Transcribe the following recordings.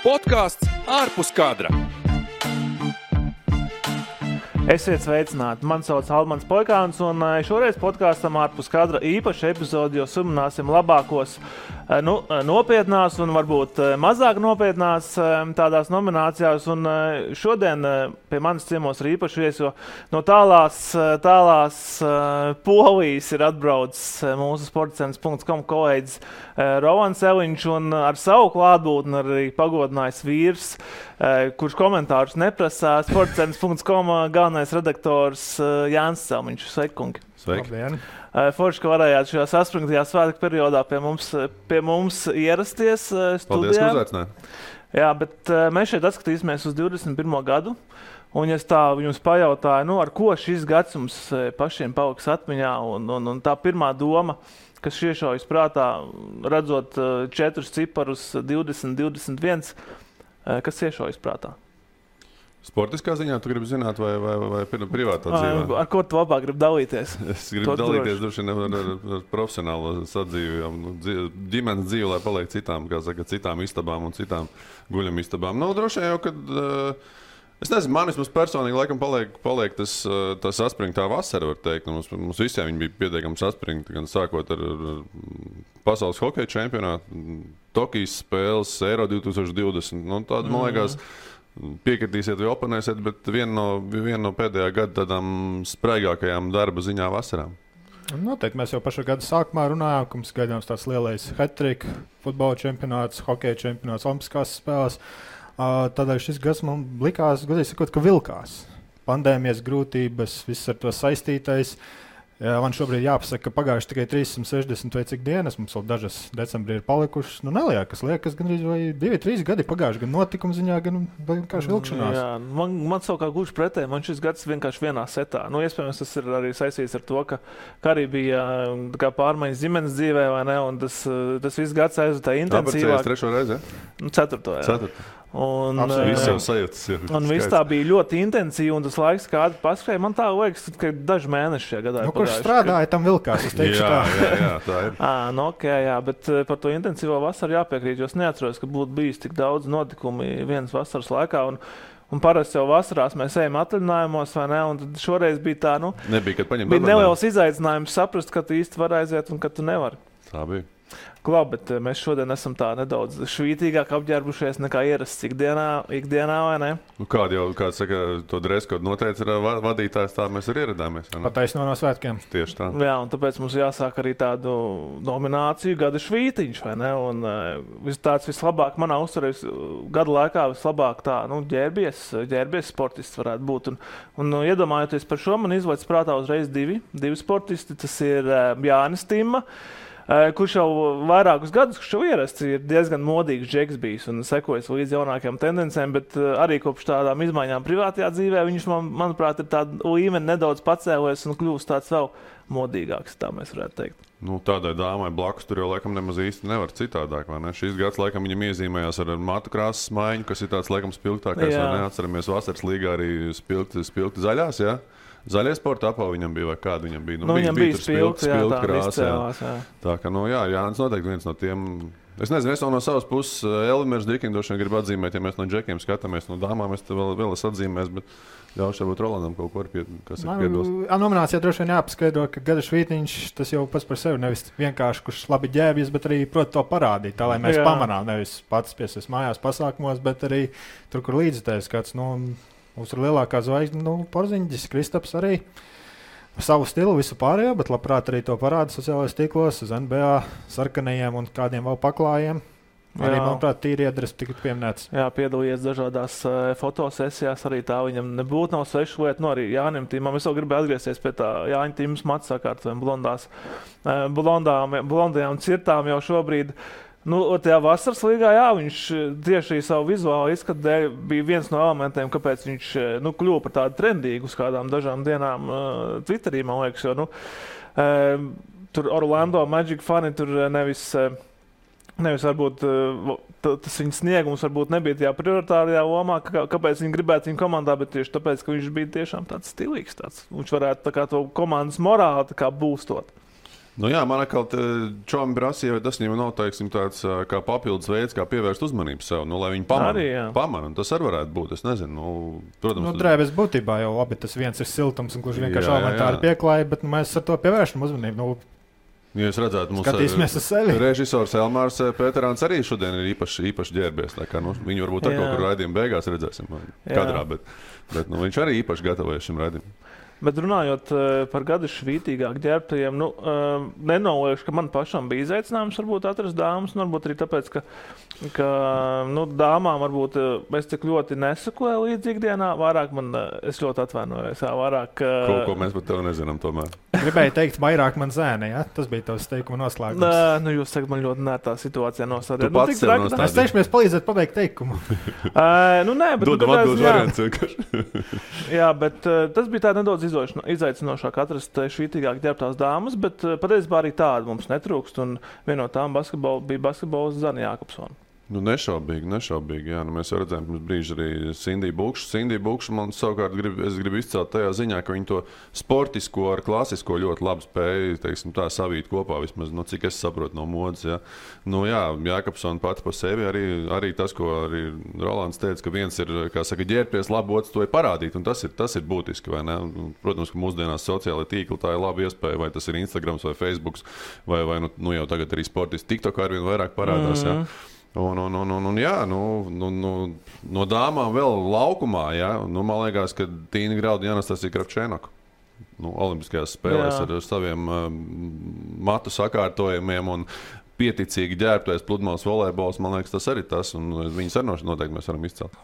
Podcasts ārpus kadra. Esiet sveicināti! Mani sauc Almans Poikāns, un šoreiz podkāstam ārpus kadra īpaši epizodi, jo sumināsim labākos nopietnās un varbūt mazāk nopietnās tādās nominācijās. Un šodien pie manis ciemos ir īpaši viesi, jo no tālās Polijas ir atbraucis mūsu sportcentrs.com kolēģis Rovans Eliņš, un ar savu klātbūtni arī pagodinājis vīrs, kurš komentārus neprasā, sportcentrs.com galvenais redaktors Jānis Celmiņš. Sveiki, kungi! Sveiki! Labdien. Forši, ka varējāt šajā saspringtajā svētku periodā pie mums ierasties studijā. Paldies, ka uzaicinājāt. Jā, bet mēs šeit atskatīsimies uz 21. gadu. Un es tā jums pajautāju, ar ko šis gads jums pašiem paliks atmiņā, un tā pirmā doma, kas iešaujas prātā, redzot 4 ciparus 20, 21, kas iešaujas prātā? Sportiskā ziņā tu gribi zināt vai privātā dzīvē? Ar ko tu labāk gribi dalīties? Es gribu dalīties droši ar profesionālo sadzīvi, ģimenes dzīvi, lai paliek citām istabām un citām guļamistabām. Droši vien jau, kad... Es nezinu, man vismaz personīgi laikam paliek tas saspringtā vasara, var teikt. Mums visiem viņi bija pietiekami saspringti, gan sākot ar pasaules hokeja čempionātu, Tokijas spēles, Eiro 2020. Tāda, man liekas, piekritīsiet vai oponēsiet, bet viena no pēdējā gada tādām spraigākajām darba ziņā vasarām. Noteikti mēs jau pašā gada sākumā runājām, ka mums gaidāms tāds lielais hat-trick, futbola čempionāts, hokeja čempionāts, olimpiskās spēles. Tādēļ šis gads man likās, godīgi sakot, ka vilkās. Pandēmijas grūtības, viss ar to saistītais. Man šobrīd jāpasaka, ka pagājuši tikai 360 vai cik dienas, mums vēl dažas decembrī ir palikušas. Liekas gandrīz vai 2-3 gadi pagājuši, gan notikuma ziņā, gan vienkārši vilkšanās. Jā, man savukārt gluži pretēji, man šis gads vienkārši vienā setā. Iespējams, tas ir arī saistīts ar to, ka arī bija pārmaiņas ģimenes dzīvē, vai ne, un tas viss gads aizvadīja intensīvāk. Tāpēc 3. reizi, ja? 4. jā. 4. Un viss tā bija ļoti intensīva, un tas laiks, kā paskrēja, man tā liekas, ka daži mēneši šajā gadā ir kurš strādāja, tam vilkās, es teikšu tā. Jā, tā ir. Jā, bet par to intensīvo vasaru jāpiekrīt, jo es neatceros, ka būtu bijis tik daudz notikumi vienas vasaras laikā, un parasti jau vasarās mēs ejam atvaļinājumos, vai ne, un tad šoreiz bija tā, nebija, kad paņemt bija neliels izaicinājums saprast, ka tu īsti var aiziet un ka tu nevari. Tā bija. Klāt, bet mēs šodien esam tā nedaudz švītīgāk apģērbušies nekā ierasts ikdienā, vai ne? Kāds saka, to dreskodu noteica vadītājs, tā mēs arī ieradāmies. Pataisno no svētkiem. Tieši tā. Jā, un tāpēc mums jāsāk arī tādu nomināciju gada švītiņš, vai ne? Un tāds vislabāk manā uzturē gada laikā vislabāk tā, ģērbies sportists varētu būt. Un iedomājoties par šo, man izlaic prātā uzreiz divi sportisti. Tas ir Jānis Timma, kurš jau vairākus gadus, kurš jau ierasts, ir diezgan modīgs džeks bijis un sekojas līdz jaunākajām tendencēm, bet arī kopš tādām izmaiņām privātajā dzīvē viņš, manuprāt, ir tāda līmeni nedaudz pacēlies un kļūst tāds vēl modīgāks, tā mēs varētu teikt. Tādai dāmai blakus tur jau laikam nemaz īsti nevar citādāk, vai ne? Šīs gads laikam viņam iezīmējās ar matu krāsas maiņu, kas ir tāds laikam spilgtākais, vai ne? Atceramies vasaras līgā arī spilgti zaļās, jā? Zaļie sporta apava viņam bija, vai kāda viņam bija? Viņam bija spilgti krāsa. Tā kā, Jānis noteikti viens no tiem. Es nezinu, es no savas puses Elimērs Dikindošana gribu atzīmēt, ja mēs no džekiem skatāmies, no dāmām es te vēl es atzīmēs, bet ļaušu varbūt Rolandam kaut ko kas ir piebilst. Nominācijā droši vien jāpaskaidro, ka gada švītiņš, tas jau pats par sevi nevis vienkārši, kurš labi ģērbjas, bet arī prot to parādīt, tā lai mēs pamanām, nevis pats piesies mājās pasākumos, bet arī tur, kur līdzitājs kāds, mums ir lielākā zvaigzne, Porziņģis, Kristaps arī savu stilu, visu pārējo, bet labprāt arī to parāda sociālajos tīklos, uz NBA sarkanajiem un kādiem vēl paklājiem. Arī, manuprāt, tīri iedres tika pieminēts. Jā, piedalījies dažādās fotosesijās, arī tā viņam nebūtu nav svešu lietu, arī Jānim Timam. Es vēl gribēju atgriezties pie tā Jāņa Timas matu sakārtvēm blondajām cirtām jau šobrīd. Tajā vasaras līgā, viņš tieši savu vizuālu izskatu dēļ bija viens no elementiem, kāpēc viņš kļuva par tādu trendīgu uz kādām dažām dienām Twitterī, man liekas, jo tur Orlando Magic fani tur nevis varbūt tas viņa sniegums varbūt nebija tajā prioritārajā lomā, kāpēc viņi gribētu viņu komandā, bet tieši tāpēc, ka viņš bija tiešām tāds stilīgs. Viņš varētu tā kā to komandas morāli tā kā būstot. Nu jā, man atkal čomi prasīja, vai tas viņam nav, teiksim, tāds kā papildus veids, kā pievērst uzmanību sev, nu, lai viņi pamana. Tas arī varētu būt, es nezinu, protams. Drēbes būtībā jau labi, tas viens ir siltums un gluži vienkārši elementāri pieklāja, bet mēs ar to pievēršam uzmanību. Ja jūs redzētu, skatīsimies uz sevi. Režisors Elmārs Pēterāns arī šodien ir īpaši ģērbies, tā kā, viņu varbūt ar kaut kur raidījuma beigās redzēsim kadrā, bet viņš arī īpaši gatavojas šim raidījumam. Bet runājot par gadu švītīgāk ģērbtajiem, nenoliekšu, ka man pašam bija izaicinājums varbūt atrast dāmas, varbūt arī tāpēc, ka dāmām varbūt es tik ļoti nesakoju līdz ikdienā, vairāk es ļoti atvainojos, vairāk... Ko mēs par tevi nezinām tomēr. Gribēju teikt, vairāk man zēne, ja? Tas bija tavs teikuma noslēgums. Jūs sakat, man ļoti nērtā situācijā nostādījāt. Tu pats sev nostādījāt. Mēs teikšamies palīdzēt pabeigt teikumu. Nē, bet... Dodam atbildes variants vienkārši. Jā, bet tas bija tā nedaudz izaicinošāk atrast švītīgāk ģērbtās dāmas, bet patiesībā arī tāda mums netrūkst, un viena no tām bija basketbols Zana Jākopsona. Nešaubīgi, jā. Mēs jau redzējām pirms brīža arī Sindiju Bukšu. Sindiju Bukšu man savukārt es gribu izcelt tajā ziņā, ka viņi to sportisko ar klasisko ļoti labi spēja, teiksim, tā savīt kopā, vismaz, cik es saprotu no modes, jā. Jākopsona pati pa sevi arī tas, ko arī Rolands teica, ka viens ir, kā saka, ģērbties labi, otrs to ir parādīt, un tas ir būtiski, vai ne? Protams, ka mūsdienās sociālai tīkli tā ir laba iespēja, vai tas ir Instagrams vai Facebooks, vai jau tagad arī sportisti TikTok arvien vairāk parādās, jā. No dāmām vēl laukumā, jā. Man liekas, ka Tīna Grauda un Anastasija Kravčēnoka olimpiskajās spēlēs ar saviem matu sakārtojumiem un pieticīgi ģērbtais pludmales volejbols, man liekas, tas arī tas, un viņas arī noteikti mēs varam izcelt.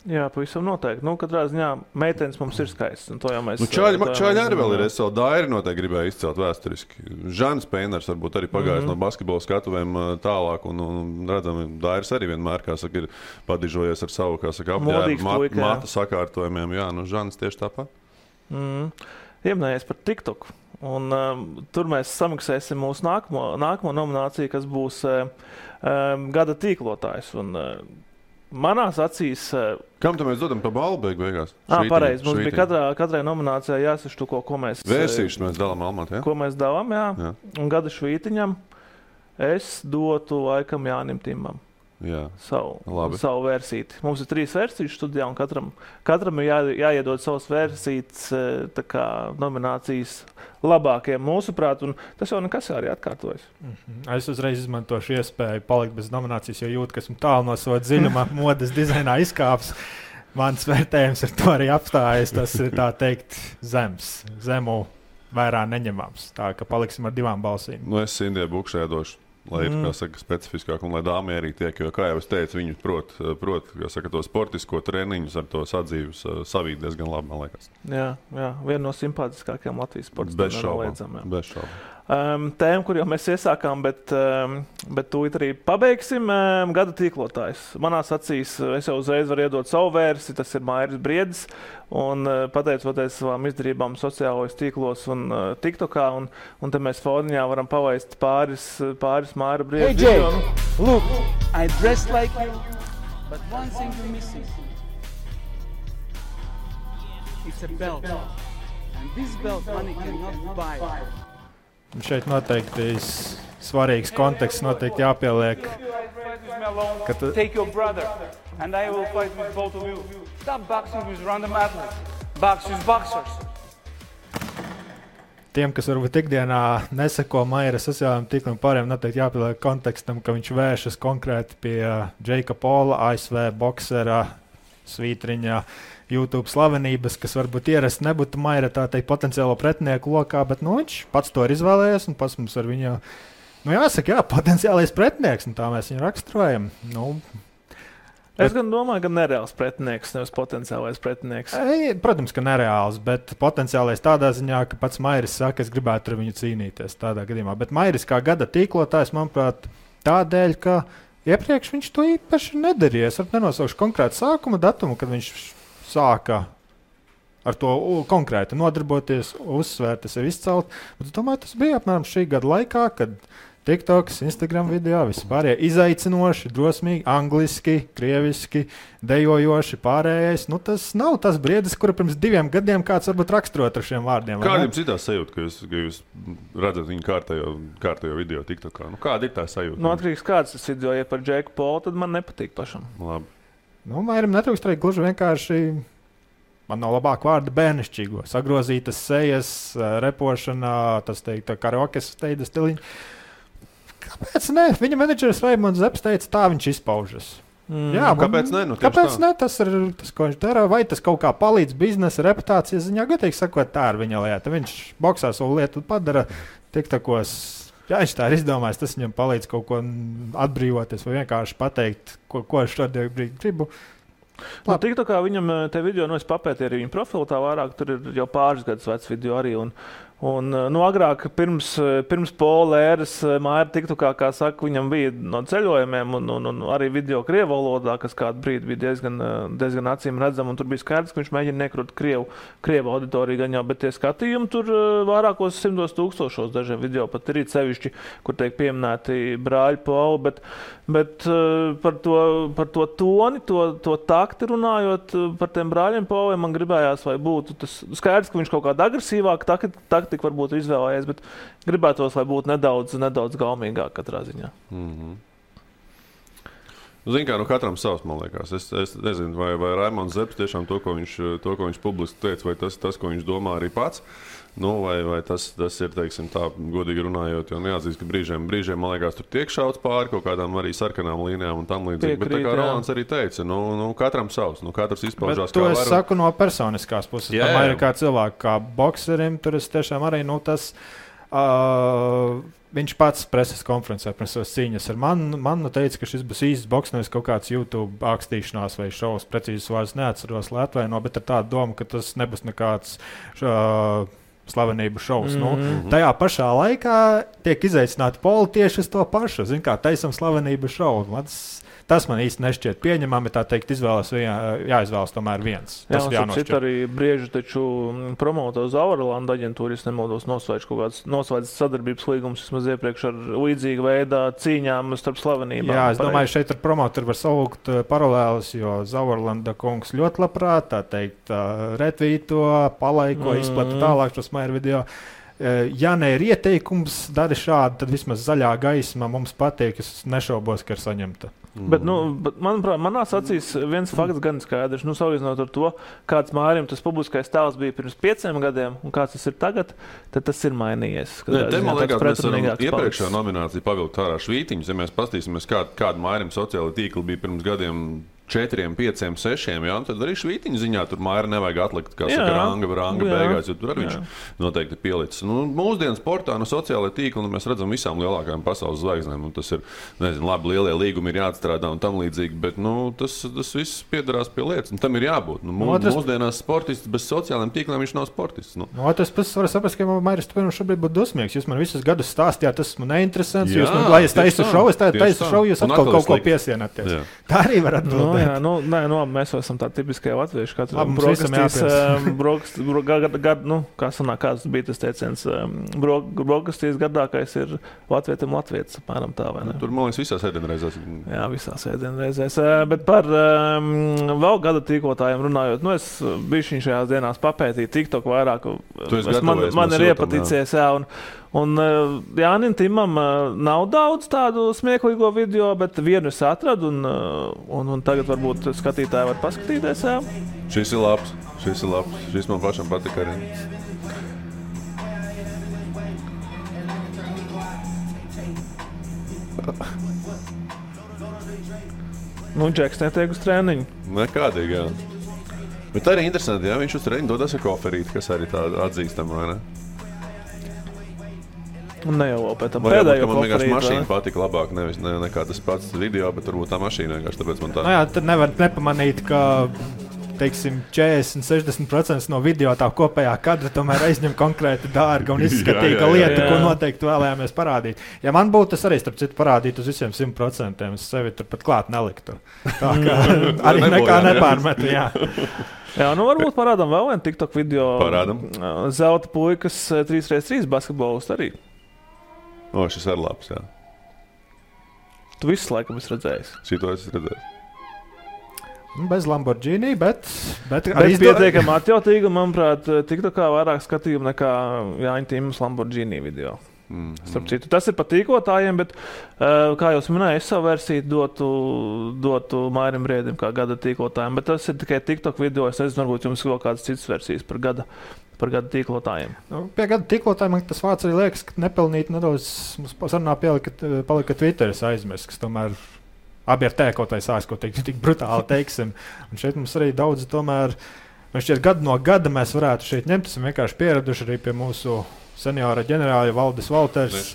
Jā, pavisam noteikti. Katrā ziņā meitenes mums ir skaistas, un to jau mēs... Čaļi arī vēl ir, es savu Dairi noteikti gribēju izcelt vēsturiski. Žans Peiners varbūt arī pagājis no basketbola skatuvēm tālāk, un redzam, Dairis arī vienmēr, kā saka, ir padižojies ar savu, kā saka, apģērbu matu sakārtojumiem. Jā, Žans tieši tāpat. Ieminējies par TikTok, un tur mēs samaksāsim mūsu nākamo nomināciju, kas būs gada tīklotājs, un manās acīs... Kam tu mēs dodam pa balvu beigās? Pareizi. Mums bija katrai nominācijai jāsaštuko, ko mēs... Vērsīšu mēs dalām Almatā, jā? Ko mēs dalām, jā. Un gada švītiņam es dotu laikam Jānim Timam. Jā. Savu versiti. Mums ir 3 versijas studijā, un katram ir jāiedod savas versijas, tā kā nominācijas labākajiem mūsuprāt, un tas jau nekas arī atkārtojas. Es uzreiz izmantošu iespēju palikt bez nominācijas, jo jūtu, ka esmu tālu no sava dziļumā modes dizainā izkāps. Mans vērtējums ar to arī apstājas. Tas ir tā teikt zemu vērā neņemams. Tā ka paliksim ar 2 balsīm. Es Sindijai Bukšai došu. Lai ir, kā saka, specifiskāk, un lai dāmai arī tiek, jo, kā jau es teicu, viņi prot, kā saka, to sportisko treniņus ar to sadzīves savīt diezgan labi, man liekas. Jā, viena no simpātiskākajām Latvijas sportistiem. Bez šaubām. Tēma, kur jau mēs iesākām, bet tūlīt arī pabeigsim. Gada tīklotājs. Manās acīs es jau uzreiz varu iedot savu versiju, tas ir Mairis Briedis, un pateicoties savām izdarībām sociālajos tīklos un TikTokā, un te mēs foniņā varam palaist pāris Maira Briedis. Hey Jay, look, I dress like you, but one thing you're missing. It's a belt, and this belt money cannot buy. Šeit noteikti svarīgs konteksts noteikti jāpieliek. Take your brother, and I will fight with both of you. Stop boxing with random athletes. Box with boxers. Tiem, kas varbūt ikdienā neseko Maira sociālajiem tīkliem pārējiem, noteikti jāpieliek kontekstam, ka viņš vēršas konkrēti pie Džeika Pola, ASV boksera, svītriņa, YouTube slavenības, kas varbūt ierasti nebūtu Maira tā teikt potenciālo pretinieku lokā, bet viņš pats to ir izvēlējies un pats mums ar viņu, jāsaka, potenciālais pretinieks, un tā mēs viņu raksturojam. Es gan domāju, ka nereāls pretinieks, nevis potenciālais pretinieks. Protams, ka nereāls, bet potenciālais tādā ziņā, ka pats Mairis saka, es gribētu ar viņu cīnīties tādā gadījumā. Bet Mairis kā gada tīklotājs, manuprāt, tādēļ, ka iepriekš viņš to īpaši nedarīja. Es nenosaukšu konkrētu sākuma datumu, kad viņš sāka ar to konkrēti nodarboties, uzsvērt, sevi izcelt. Bet es domāju, tas bija apmēram šī gada laikā, kad TikToks, Instagram video, vispārējie izaicinoši, drosmīgi, angliski, krieviski, dejojoši, pārējais. Nu, tas nav tas briedis, kura pirms 2 gadiem kāds varbūt raksturot ar šiem vārdiem. Kāda jums ir tā sajūta, ka jūs redzat viņu kārtējo video TikTokā? Nu, kāda ir tā sajūta? Nu, atkarīgs kāds tas video, ja par Džeku Polu, tad man nepatīk pašam. Labi. Nu, vairam netrūkst arī gluži vienkārši, man nav labāk vārda bērnišķīgo, sagrozītas sejas, repošana, tas teikt, karaokes steida stiliņa. Kāpēc ne? Viņa menedžeris Raimonds Zepes teica, tā viņš izpaužas. Jā, kāpēc ne? Nu, kāpēc ne? Tas ir tas, ko viņš dara. Vai tas kaut kā palīdz biznesa reputācijas ziņā? Godīgi sakot, tā ir viņa lieta. Viņš boksā savu lietu padara tiktakos. Jā, viņš tā ir izdomājis. Tas viņam palīdz kaut ko atbrīvoties vai vienkārši pateikt, ko es šodien gribu. Nu, TikTokā viņam te video, es papētīju arī viņa profilu tā vairāk, tur ir jau pāris gadus vecs video arī. Un agrāk, pirms Pola ēras, Maira TikTokā, kā saka, viņam bija no ceļojumiem un arī video krievu valodā, kas kādu brīdi bija diezgan acīm redzama. Un tur bija skaidrs, ka viņš mēģina nekrūt krievu auditoriju gan jau, bet tie skatījumi tur vairākos 100 000 dažiem video pat ir sevišķi, kur tiek pieminēti brāļi Poli. Bet par to toni, to takti runājot par tiem brāļiem Poliem, man gribējās, vai būtu tas skaidrs, ka viņš kaut kāda agresīvāk taktika varbūt izvēlējies, bet gribētos, lai būtu nedaudz gaumīgāk katrā ziņā. Zini kā, katram savs, man liekas. Es nezinu, vai Raimonds Zepes tiešām to, ko viņš publiski teica, vai tas, ko viņš domā arī pats. Nu, vai tas ir, teiksim, tā godīgi runājot, jo neatzīst, ka brīžiem, man liekas, tur tiek šauts pāri kaut kādām arī sarkanām līnijām un tam līdzīgi. Bet tā kā Rolands arī teica, katram savs, katrs izpaužās kā var. To es saku no personiskās puses. Tomēr kā cilvēku, kā bokserim, tur es tiešām arī, tas... Viņš pats preses konferencē pirms savas cīņas ar mani teica, ka šis būs īsts boks, nevis kaut kāds YouTube ākstīšanās vai šovs, precīzes vārds neatceros, lai atvaino, bet ar tādu domu, ka tas nebūs nekāds slavenību šovs. Tajā pašā laikā tiek izaicināti Poli tieši uz to pašu. Zin kā, taisam slavenību šovu. Tas man īsti nešķiet pieņemami, tā teikt, jāizvēlas tomēr viens. Tas jā, un citi arī brieži taču promoto Zauerlanda aģentūru, es nemaldos, noslēdz sadarbības līgumus vismaz iepriekš ar līdzīgu veidā cīņām starp slavenībām. Jā, es domāju, šeit ar promotoru var saukt paralēlus, jo Zauerlanda kungs ļoti labprāt, tā teikt, retvīto, palaiko, izplata tālāk šos Maira video. Ja ne ir ieteikums, dari šādi, tad vismaz zaļā gaisma mums patīk, es nešaubos, ka ir saņemta. Bet, manuprāt, manās acīs viens fakts gan skaidrs. Salīdzinot ar to, kāds Mairim tas publiskais tēls bija pirms 5 gadiem un kāds tas ir tagad, tad tas ir mainījies. Te, man liekas, mēs varam iepriekšējā nomināciju pavilkt ārā švītiņus. Ja mēs pastīsimies, kāda Mairim sociāla tīkla bija pirms gadiem 4, 5, 6, jā, tad arī švītiņu ziņā tur Maira nevajag atlikt, kā saka, ranga beigās, jo tur arī viņš noteikti pielicis. Mūsdienu sportā no sociālajā tīkla mēs redzam visām lielākajām pasaules zvaigznēm. Tas ir, nezinu, labi, lielie līgumi ir jāatstrādā un tam līdzīgi, bet tas viss piedarās pie lietas, un tam ir jābūt. Mūsdienās sportists bez sociālajiem tīkliem viņš nav sportists. Tas pats var saprast, ka Mairis šobrīd būtu dusmīgs. Jūs man visus gadus stāstījāt, tas man neinteresants. Jūs man, lai es taisu šovu, jūs atkal kaut ko piesienāties. Tā arī var atbildēt. Mēs esam tādi tipiskie latvieši. Katram kāds bija tas teiciens, brokastīs gardākais ir latvietim latvietis, apmēram tā, vai ne? Tur, man liekas, visās ēdienreizēs. Jā, visās ēdienreizēs. Bet par vēl gada tīklotājiem runājot, es bišķiņ šajās dienās papētīju TikTok vairāk. Man ir iepaticies, jā, un Jānim Timam nav daudz tādu smieklīgo video, bet vienu es atradu, un tagad varbūt skatītāji var paskatīties. Jā. Šis ir labs. Šis man pašam patika arī. Džeks netiek uz treniņu. Nekādīgi, jā. Bet arī interesanti, jā, viņš uz treniņu dodas ar koferīti, kas arī tāda atzīstama, vai ne? Un ne jau pēc tam pēdējo man vienkārši mašīna patika labāk, nevis nekā tas pats video, bet varbūt tā mašīna vienkārši, tāpēc man tā. Jā, tad nevar nepamanīt, ka, teiksim, 40-60% no video tā kopējā kadra tomēr aizņem konkrēti dārga un izskatīga lieta, ko noteikti vēlējāmies parādīt. Ja man būtu tas arī, starp citu, parādīt uz visiem 100%, es sevi tur pat klāt neliktu. Tā kā arī nekā nepārmetu, jā. Jā, varbūt parādām vēl vienu TikTok video. Parādam. Zelta puikas 3x3 basketbolists arī. Šis ir labs, jā. Tu visu laikam esi redzējis. Šito esi redzējis. Bez Lamborghini, bet arī pietiekami atjautīgi, un, manuprāt, TikTokā vairāk skatījumu nekā Jāņa Tīmas Lamborghini video. Starp citu, tas ir patīkotājiem, bet, kā jūs minējāt, es savu versiju dotu Mairim Briedim kā gada tīklotājiem, bet tas ir tikai TikTok video. Es nezinu, varbūt jums vēl kādas citas versijas par gada tīklotājiem. Pie gada tīklotājiem man tas vārds arī liekas, ka nepelnīt nedaudz mums sarunā palika Twitteris aizmirst, kas tomēr abi ar tēkotai sāks, ko tik brutāli teiksim. Un šeit mums arī daudz tomēr, šķiet gadu no gada mēs varētu šeit ņemt, esam vienkārši pieraduši arī pie mūsu seniora ģenerāļa Valdis Valters.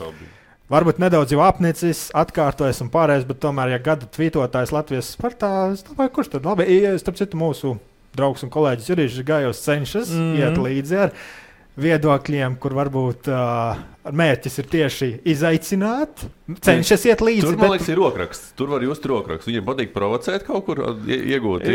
Varbūt nedaudz jau apnicis, atkārtojas un pārējais, bet tomēr, ja gada tvītotājs Latvijas sportā, es domāju, kurš tad labi? Starp citu, mūsu draugs un kolēģis Jurijs Gājos cenšas iet līdzi ar viedokļiem, kur varbūt mērķis ir tieši izaicināt, cenšas iet līdzi. Tur, man liekas, ir rokraksts. Tur var just rokraksts. Viņiem patīk provocēt kaut kur, iegūt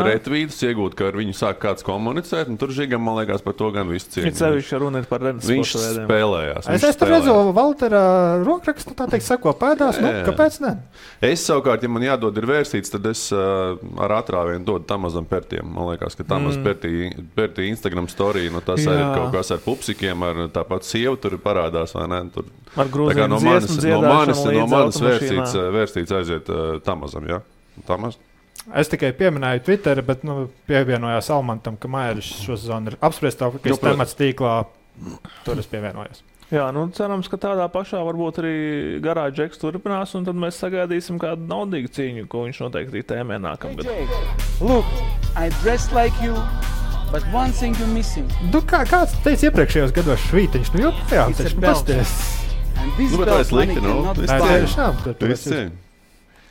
retvītus, iegūt, ka ar viņu sāk kāds komunicēt, un tur Žigam, man liekas, par to gan visu cienu. Viņš runa ir par rednes Viņš spēlējās. Es tur redzu Valtera rokrakstu, tā teikt, seko pēdās, kāpēc ne? Es savukārt, ja man jādod ir vērsīts, tad es ar atrāvienu dodu Tamazam Pertiem. Man liekas, ka Tamaz Pertī Instagram story, no tas ir kaut kas ar pupsikiem, ar tāpat sievu tur parādās, vai ne? Tur, ar grūzīm dziesmu dziedāšanu no manas vērstīts aiziet Tamazam, jā? Tamaz? Es tikai pieminēju Twitter, bet pievienojās Almantam, ka Mairis šo zonu ir apspriestākais temats tīklā. Tur es pievienojos. Jā, cerams, ka tādā pašā varbūt arī garā Džeks turpinās, un tad mēs sagaidīsim kādu naudīgu cīņu, ko viņš noteikti tēmē nākamgad. Look, I dress like you. But one thing you're missing. Kāds teica iepriekšējos gados švītiņš, joprojām taču pasties. Bet tā ir slikti,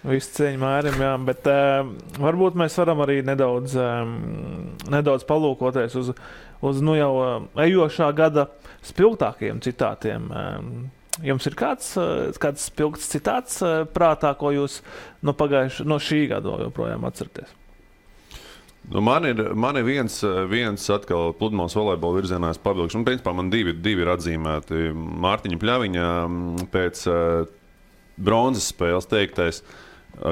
Visu cieņu Mārim, jā, bet varbūt mēs varam arī nedaudz palūkoties uz jau ejošā gada spilgtākajiem citātiem. Jums ir kāds spilgts citāts prātā, ko jūs no šī gada joprojām atceraties? Man ir viens atkal pludmales volejbola virzienā pavilkšu. Principā man divi ir atzīmēti. Mārtiņa Pļaviņa pēc bronzas spēles teiktais,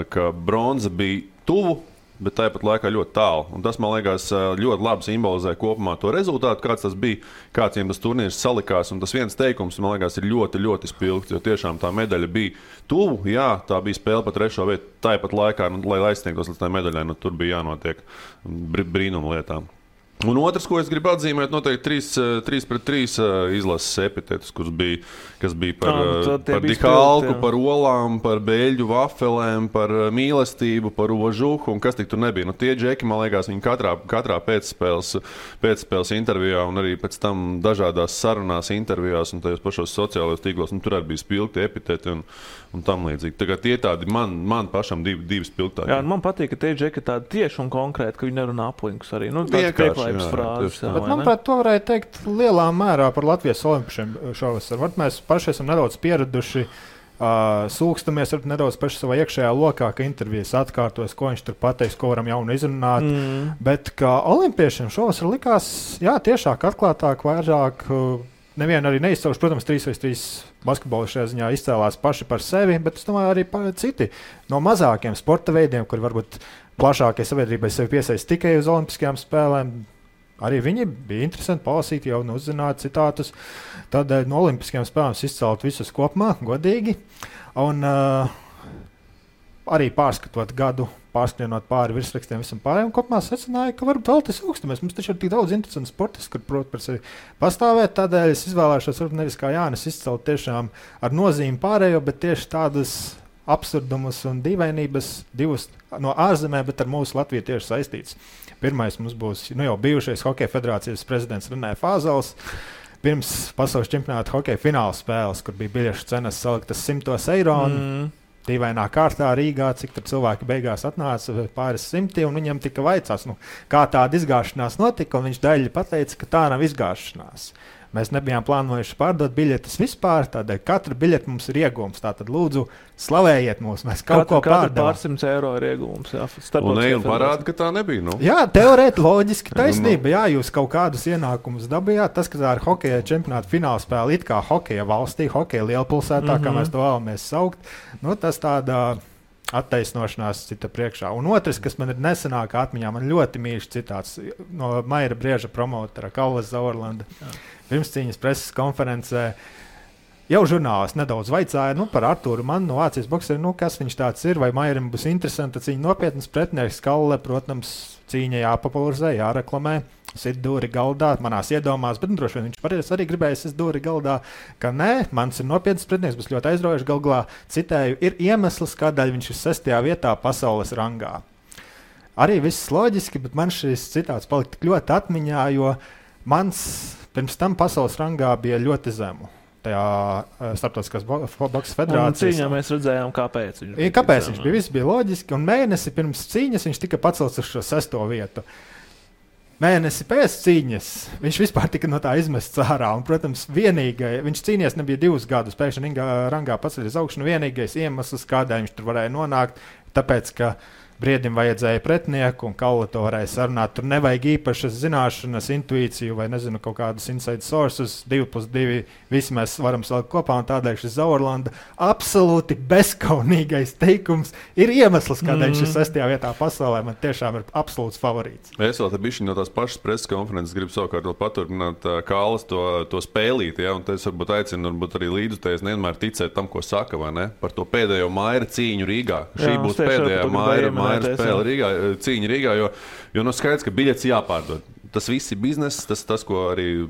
ka bronza bija tuvu, bet tāpat laikā ļoti tālu. Un tas, man liekas, ļoti labi simbolizē kopumā to rezultātu, kāds tas bija, kāds viņiem tas turnīrs salikās. Un tas viens teikums, man liekas, ir ļoti, ļoti spilgts, jo tiešām tā medaļa bija tuvu. Jā, tā bija spēle pa 3. vietu. Tāpat laikā, lai aizsniegtos līdz tā medaļai, tur bija jānotiek brīnuma lietām. Un otrs, ko es gribu atzīmēt, noteikti 3-3 izlases epitetus, kas bija par Dihalku, par olām, par beļģu vafelēm, par mīlestību, par ožuhu un kas tik tur nebija. Tie džeki, man liekas, viņi katrā pēcspēles intervijā un arī pēc tam dažādās sarunās intervijās un tajos pašos sociālajos tīklos, tur arī bija spilgti epiteti un tam līdzīgi. Tagad tie tādi man pašam divi spilgtāki. Jā, man patīk, ka tie džeki tādi tieši un konkrēti, ka viņi nerunā aplinkus arī. Frāzes, bet, manuprāt, to varēja teikt lielā mērā par Latvijas olimpiešiem šovasar. Mēs paši esam nedaudz pieraduši, sūkstamies nedaudz paši savā iekšējā lokā, ka intervijas atkārtojas, ko viņš tur pateiks, ko varam jaunu izrunāt. Bet kā olimpiešiem šovasar likās, jā, tiešāk atklātāk, vairāk. Nevienu arī neizcauši, protams, 3x3 basketbolu šajā ziņā izcēlās paši par sevi, bet es domāju arī citi no mazākiem sporta veidiem, kur varbūt plašākai sabiedrībai sevi piesaist tikai uz olimpiskajām spēlēm. Arī viņi bija interesanti palasīt, jau uzzināt citātus. Tādēļ no olimpiskajām spēlēm izcelt visus kopumā, godīgi. Un arī pārskatot gadu, pārskrienot pāri virsrakstiem visam pārējiem, kopumā secināja, ka varbūt vēl tas augstamies. Mums taču ir tik daudz interesantu sportistu, kur prot par sevi pastāvēt. Tādēļ es izvēlēšos varbūt nevis kā Jānis izcelt tiešām ar nozīmi pārējo, bet tieši tādas absurdumus un dīvainības divus no ārzemē, bet ar mūsu Latviju tieši saistīts. Pirmais mums būs jau bijušais Hokeja federācijas prezidents Renē Fāzels. Pirms pasaules čempionāta hokeja fināla spēles, kur bija biļešu cenas saliktas €100. Dīvainā kārtā Rīgā, cik tur cilvēki beigās atnāca pāris simti, un viņam tika vaicāts, kā tāda izgāšanās notika, un viņš daļai pateica, ka tā nav izgāšanās. Mēs nebijām plānojuši pārdot biļetes vispār, tādēļ katra biļete mums ir iegūms. Tātad lūdzu, slavējiet mūs, mēs kaut ko pārdevām. Pār 100 eiro ir iegūms. Jā, un parāda, ka tā nebija. Nu. Jā, teorēti loģiski taisnība. Jā, jūs kaut kādus ienākumus dabījāt. Tas, ka tā ir hokeja čempionāta finālspēle, it kā hokeja valstī, hokeja lielpilsētā, kā mēs to vēlamies saukt, nu, tas tādā attaisnošanās cita priekšā. Un otrs, kas man ir nesenākā atmiņā, man ļoti mīļš citāts no Maira Brieža promotera Kallas Zaorlanda. Pirmscīņas preses konferencē jau žurnālisti nedaudz vaicāja par Artūru Mannu no Vācijas bokseri, kas viņš tāds ir, vai Mairam būs interesanti cīņa nopietnas pretinieks. Kalle, protams, cīņa jāpopularizē, jāreklamē. Sit dūri galdā, manās iedomās, bet droši vien viņš arī gribēja sit dūri galdā, ka nē, mans ir nopietns pretinieks, būs ļoti aizraujoši. Galvā, citēju, ir iemesls, kādēļ viņš ir 6. vietā pasaules rangā. Arī viss loģiski, bet man šis citāts palika tik ļoti atmiņā, jo mans pirms tam pasaules rangā bija ļoti zemu. Tajā starptautiskās boksa federācijas. Cīņā mēs redzējām, kāpēc viņš bija. Kāpēc viņš bija? Viss bija loģiski, un mēnesi pirms cīņas viņš tika pacelts uz šo 6. vietu. Mēnesi pēc cīņas viņš vispār tika no tā izmests ārā. Un, protams, viņš cīnījās nebija 2 gadus, pēkšņi rangā paceļas augšu. Vienīgais iemesls, kādēļ viņš tur varēja nonākt, tāpēc, ka Briedim vajadzēja pretinieku, un Kalle to varēja sarunāt. Tur nevajag īpašas zināšanas, intuīciju vai, nezinu, kaut kādus inside sources. 2+2 visi mēs varam salikt kopā, un tādēļ šis Zaorlanda absolūti bezkaunīgais teikums ir iemesls, kādēļ viņš ir 6. vietā pasaulē. Man tiešām ir absolūts favorīts. Es vēl te bišķiņ no tās pašas preses konferences gribu savukārt paturpināt Kalles to spēlīt, ja, un es varbūt aicinu arī līdzutējus nevienmēr ticēt tam, ko saka, vai ne? Par to pēdējo Maira cīņu Rīgā. Šī būs pēdējā Maira spēle Rīgā, cīņa Rīgā, jo skaidrs, ka biļets jāpārdod. Tas viss ir bizness, tas ko arī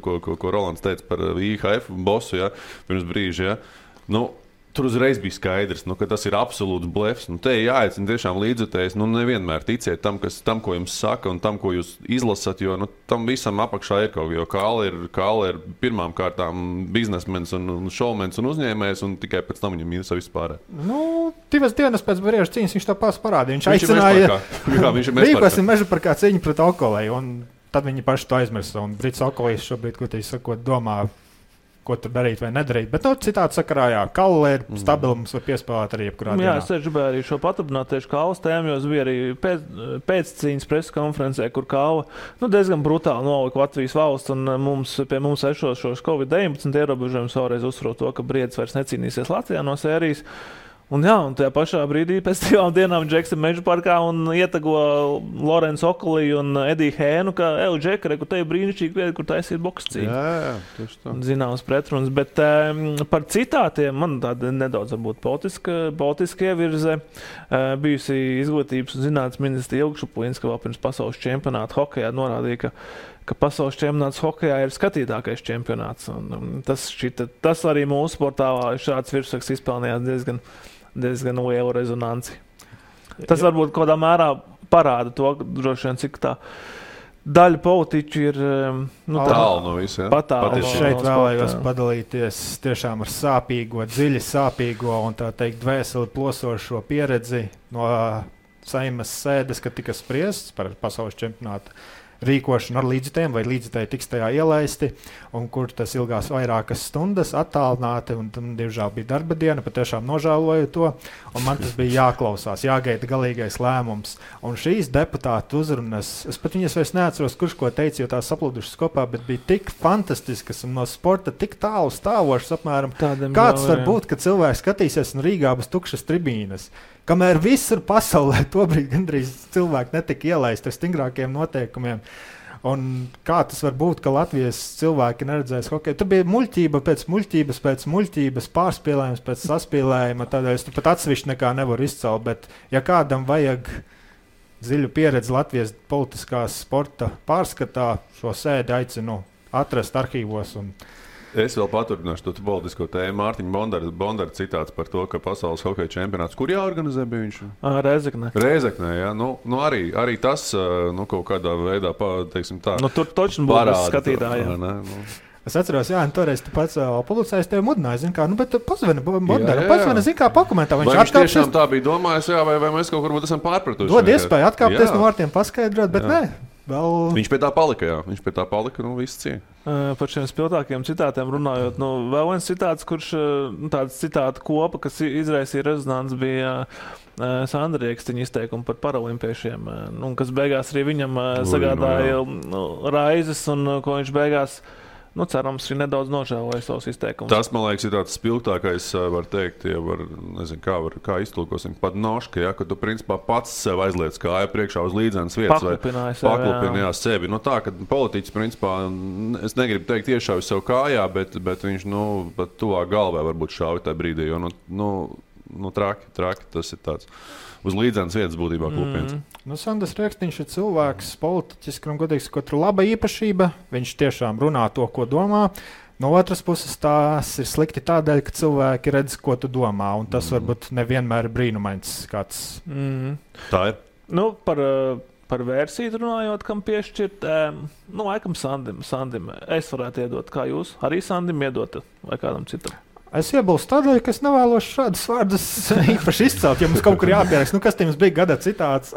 ko Rolands teica par IHF bosu, ja, pirms brīža. Ja. Nu, tur uzreiz bija skaidrs, ka tas ir absolūts blefs. Te jāaicina tiešām līdzutējs. Nevienmēr ticiet tam, ko jums saka un tam, ko jūs izlasat, jo tam visam apakšā ir kaut kas. Jo Kalle ir pirmām kārtām biznesmens un šovmens un uzņēmējs, un tikai pēc tam viņam ir viss pārējais. 2 dienas pēc Brieža cīņas viņš to pats parādīja. Viņš aicināja rīkosim meža parkā cīņu pret Okolēju, un tad viņi paši to aizmirsa. Un Brits Okolējs šobrīd, domā, ko tur darīt vai nedarīt. Bet citādi sakarā, Kalle ir stabila, mums var piespēlēt arī jebkurā dienā. Jā, es gribēju arī šo paturpināt tieši Kalles tēmu, jo es biju arī pēc cīņas preses konferencē, kur Kalle diezgan brutāli nolika Latvijas valsts, un pie mums šos Covid-19 ierobežojumus vēlreiz uzsver to, ka Briedis vairs necīnīsies Latvijā no sērijas. Un tajā pašā brīdī pēc 2 dienām Džeks ir Meža parkā un ietago Lorenzu Okoliju un Ediju Hēnu, ka Džeka, kur te ir brīnišķīgi vieta, kur taisīt bokscīņu. Jā, tieši tā. Zināms pretrunas, bet par citātiem man tāda nedaudz varbūt politiska ievirze. Bijusi izglītības un zinātnes ministra Ilgšuplīnska vēl pirms pasaules čempionāta hokejā norādīja, ka pasaules čempionāts hokejā ir skatītākais čempionāts. Un tas arī mūsu portālā šāds virsraksts izpelnījās diezgan lielu rezonanci. Tas varbūt kādā mērā parāda to, droši vien, cik tā daļa politiķu ir tālu no visiem. Es šeit vēlējos padalīties tiešām ar sāpīgo, dziļi sāpīgo un tā teikt dvēseli plosošo pieredzi no Saimas sēdes, kad tika spriests par pasaules čempionātu rīkošanu ar līdzutējiem, vai līdzutēji tiks tajā ielaisti, un kur tas ilgās vairākas stundas attālināti, un tam diemžēl bija darba diena, patiešām nožēloju to, un man tas bija jāklausās, jāgaida galīgais lēmums. Un šīs deputātu uzrunas, es pat viņas vairs neatceros, kurš ko teica, jo tās saplūdušas kopā, bet bija tik fantastiskas un no sporta tik tālu stāvošas apmēram. Kāds var būt, ka cilvēks skatīsies un Rīgā būs tukšas tribīnes? Kamēr visur pasaulē tobrīd gandrīz cilvēki netika ielaisti ar stingrākiem noteikumiem. Un kā tas var būt, ka Latvijas cilvēki neredzēs hokeju? Tur bija muļķība pēc muļķības, pārspīlējums pēc saspīlējuma. Tādēļ es pat atsevišķi nekā nevaru izcelt. Bet, ja kādam vajag dziļu pieredzi Latvijas politiskās sporta pārskatā, šo sēdi aicinu atrast arhīvos. Es vēl paturpināšu to politisko tēmu. Mārtiņa Bondara citāts par to, ka pasaules hokeja čempionāts, kur jāorganizē bija viņš? Rēzeknē, jā. Arī tas kaut kādā veidā, teiksim tā, tur točni būs skatītājiem. Es atceros, jā, toreiz tu pats publicējis tevi mudināji, zin kā, bet pazvani Bondaram, zin kā, pakomentā. Viņš tiešām tā bija domājis, jā, vai mēs kaut kur esam pārpratuši. Dod iespēju atkāpties no vārtiem, paskaidrot, bet nē. Viņš pie tā palika, viss cieņa. Par šiem spilgtākiem citātiem runājot, vēl viens citāts, kurš tāds citātu kopa, kas izraisīja rezonanci, bija Sandra Riekstiņa izteikumi par paralimpiešiem, kas beigās arī viņam sagādāja raizes, un ko viņš beigās, cerams, ir nedaudz nožēloja savus izteikumus. Tas, man liekas, ir tāds spilgtākais, var teikt, kā iztulkosim, pat noška, ka tu principā pats sev aizliec kāja priekšā uz līdzenas vietas vai paklupinājās sevi. Tā, ka politiķis, principā, es negribu teikt iešauj sev kājā, bet viņš, pat tuvāk galvē varbūt šauj tajā brīdī, jo, traki tas ir tāds. Uz līdzenas vietas būtībā klupiens. Sandrs Riekstiņš ir cilvēks, politiķis, kuram godīgs, ko tur laba īpašība. Viņš tiešām runā to, ko domā. No otras puses, tās ir slikti tādēļ, ka cilvēki redz, ko tu domā, un tas varbūt nevienmēr ir brīnumains kāds. Tā ir. Par versiju runājot, kam piešķirt, laikam Sandim. Es varētu iedot, kā jūs. Arī Sandim iedot vai kādam citam. Es iebilstu tādēļ, ka es nevēlos šādus vārdus īpaši izcelt. Ja mums kaut kur jāpieraksta, kas tiem bija gada citāts,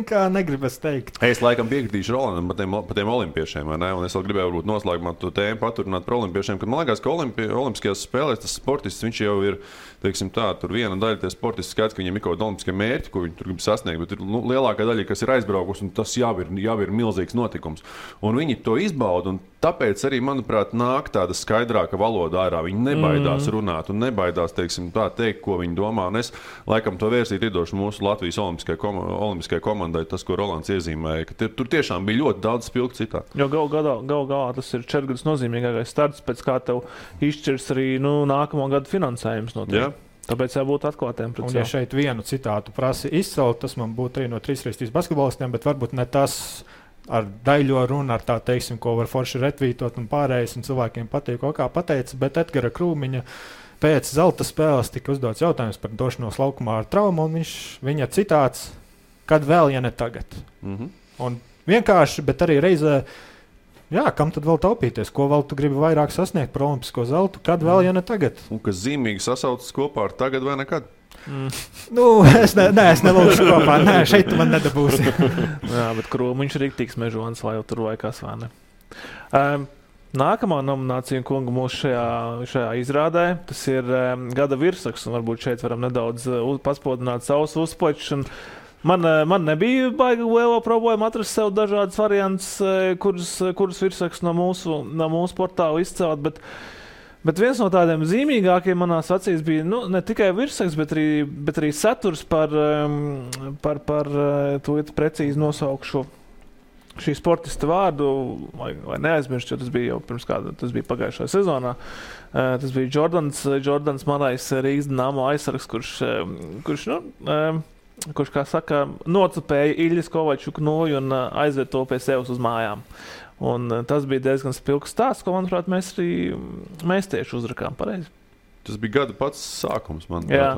kā negribas teikt. Es laikam piekritīšu Rolandam par tiem olimpiešiem, vai ne? Un es vēl gribēju varbūt noslēgumā to tēmu paturināt par olimpiešiem, kad man liekas, ka olimpiskajās spēlēs tas sportists, viņš jau ir, teiksim tā, tur viena daļa tie sportisti skaidrs, ka viņiem ir kaut kādi olimpiskie mērķi, ko viņi tur grib sasniegt, bet ir lielākā daļa, kas ir aizbraukusi, un tas jau ir milzīgs notikums. Un viņi to izbauda, un tāpēc arī, manuprāt, nāk tāda skaidrāka valoda ārā. Viņi nebaidās runāt un nebaidās, teiksim, tā teikt, ko viņi domā. Un es, laikam, to vērsīt iedošu mūsu Latvijas olimpiskajai komandai, tas, ko Rolands iezīmēja, ka tur tiešām bija ļoti daudz spilgtu citātu. Jo gal galā tas ir 4 gadus nozīmīgākais starts, pēc kā tev izšķirs arī nākamo gadu finansējums no tev. Tāpēc jābūt atklātiem pret sevi. Un ja šeit vienu citātu prasi izcelt, tas man būtu arī no 3x3 basketbolistiem, bet varbūt ne tas ar daļo runu, ar tā teiksim, ko var forši retvītot un pārējais, un cilvēkiem patīk, ko kā pateica, bet Edgara Krūmiņa pēc zelta spēles tika uzdots jautājums par došanos laukumā ar traumu, un viņa citāts, kad vēl, ja ne tagad. Un vienkārši, bet arī reizē, kam tad vēl taupīties, ko vēl tu gribi vairāk sasniegt par olimpisko zeltu, kad vēl, ja ne tagad. Un kas zīmīgi sasaucas kopā ar tagad vai nekad? Es nelūkšu kopā. Nē, šeit tu man nedabūsi. Jā, bet Krūmiņš ir riktīgs mežonis, lai jau tur vai kas vai ne. Nākamā nominācija kunga mūsu šajā izrādē, tas ir gada virsraksts, un varbūt šeit varam nedaudz paspodināt savus uzplačus. Man nebija baigi liela problēma atrast sev dažādas variants, kurus virsraksts no mūsu portāla izcelt, bet viens no tādiem zīmīgākiem manās acīs bija ne tikai virsraksts, bet arī saturs par to precīzi nosaukšu šī sportista vārdu, vai neaizmirst, jo tas bija jau pirms kāda, tas bija pagājušajā sezonā. Tas bija Jordans Marais Rīgas Dinamo aizsargs, kurš, kā saka, nocupēja Iļas Kovačuku nūju un aizved to pie sevis uz mājām. Un tas bija diezgan spilgts stāsts, ko, manuprāt, mēs tieši uzrakām pareizi. Tas bija gada pats sākums, manuprāt. Jā,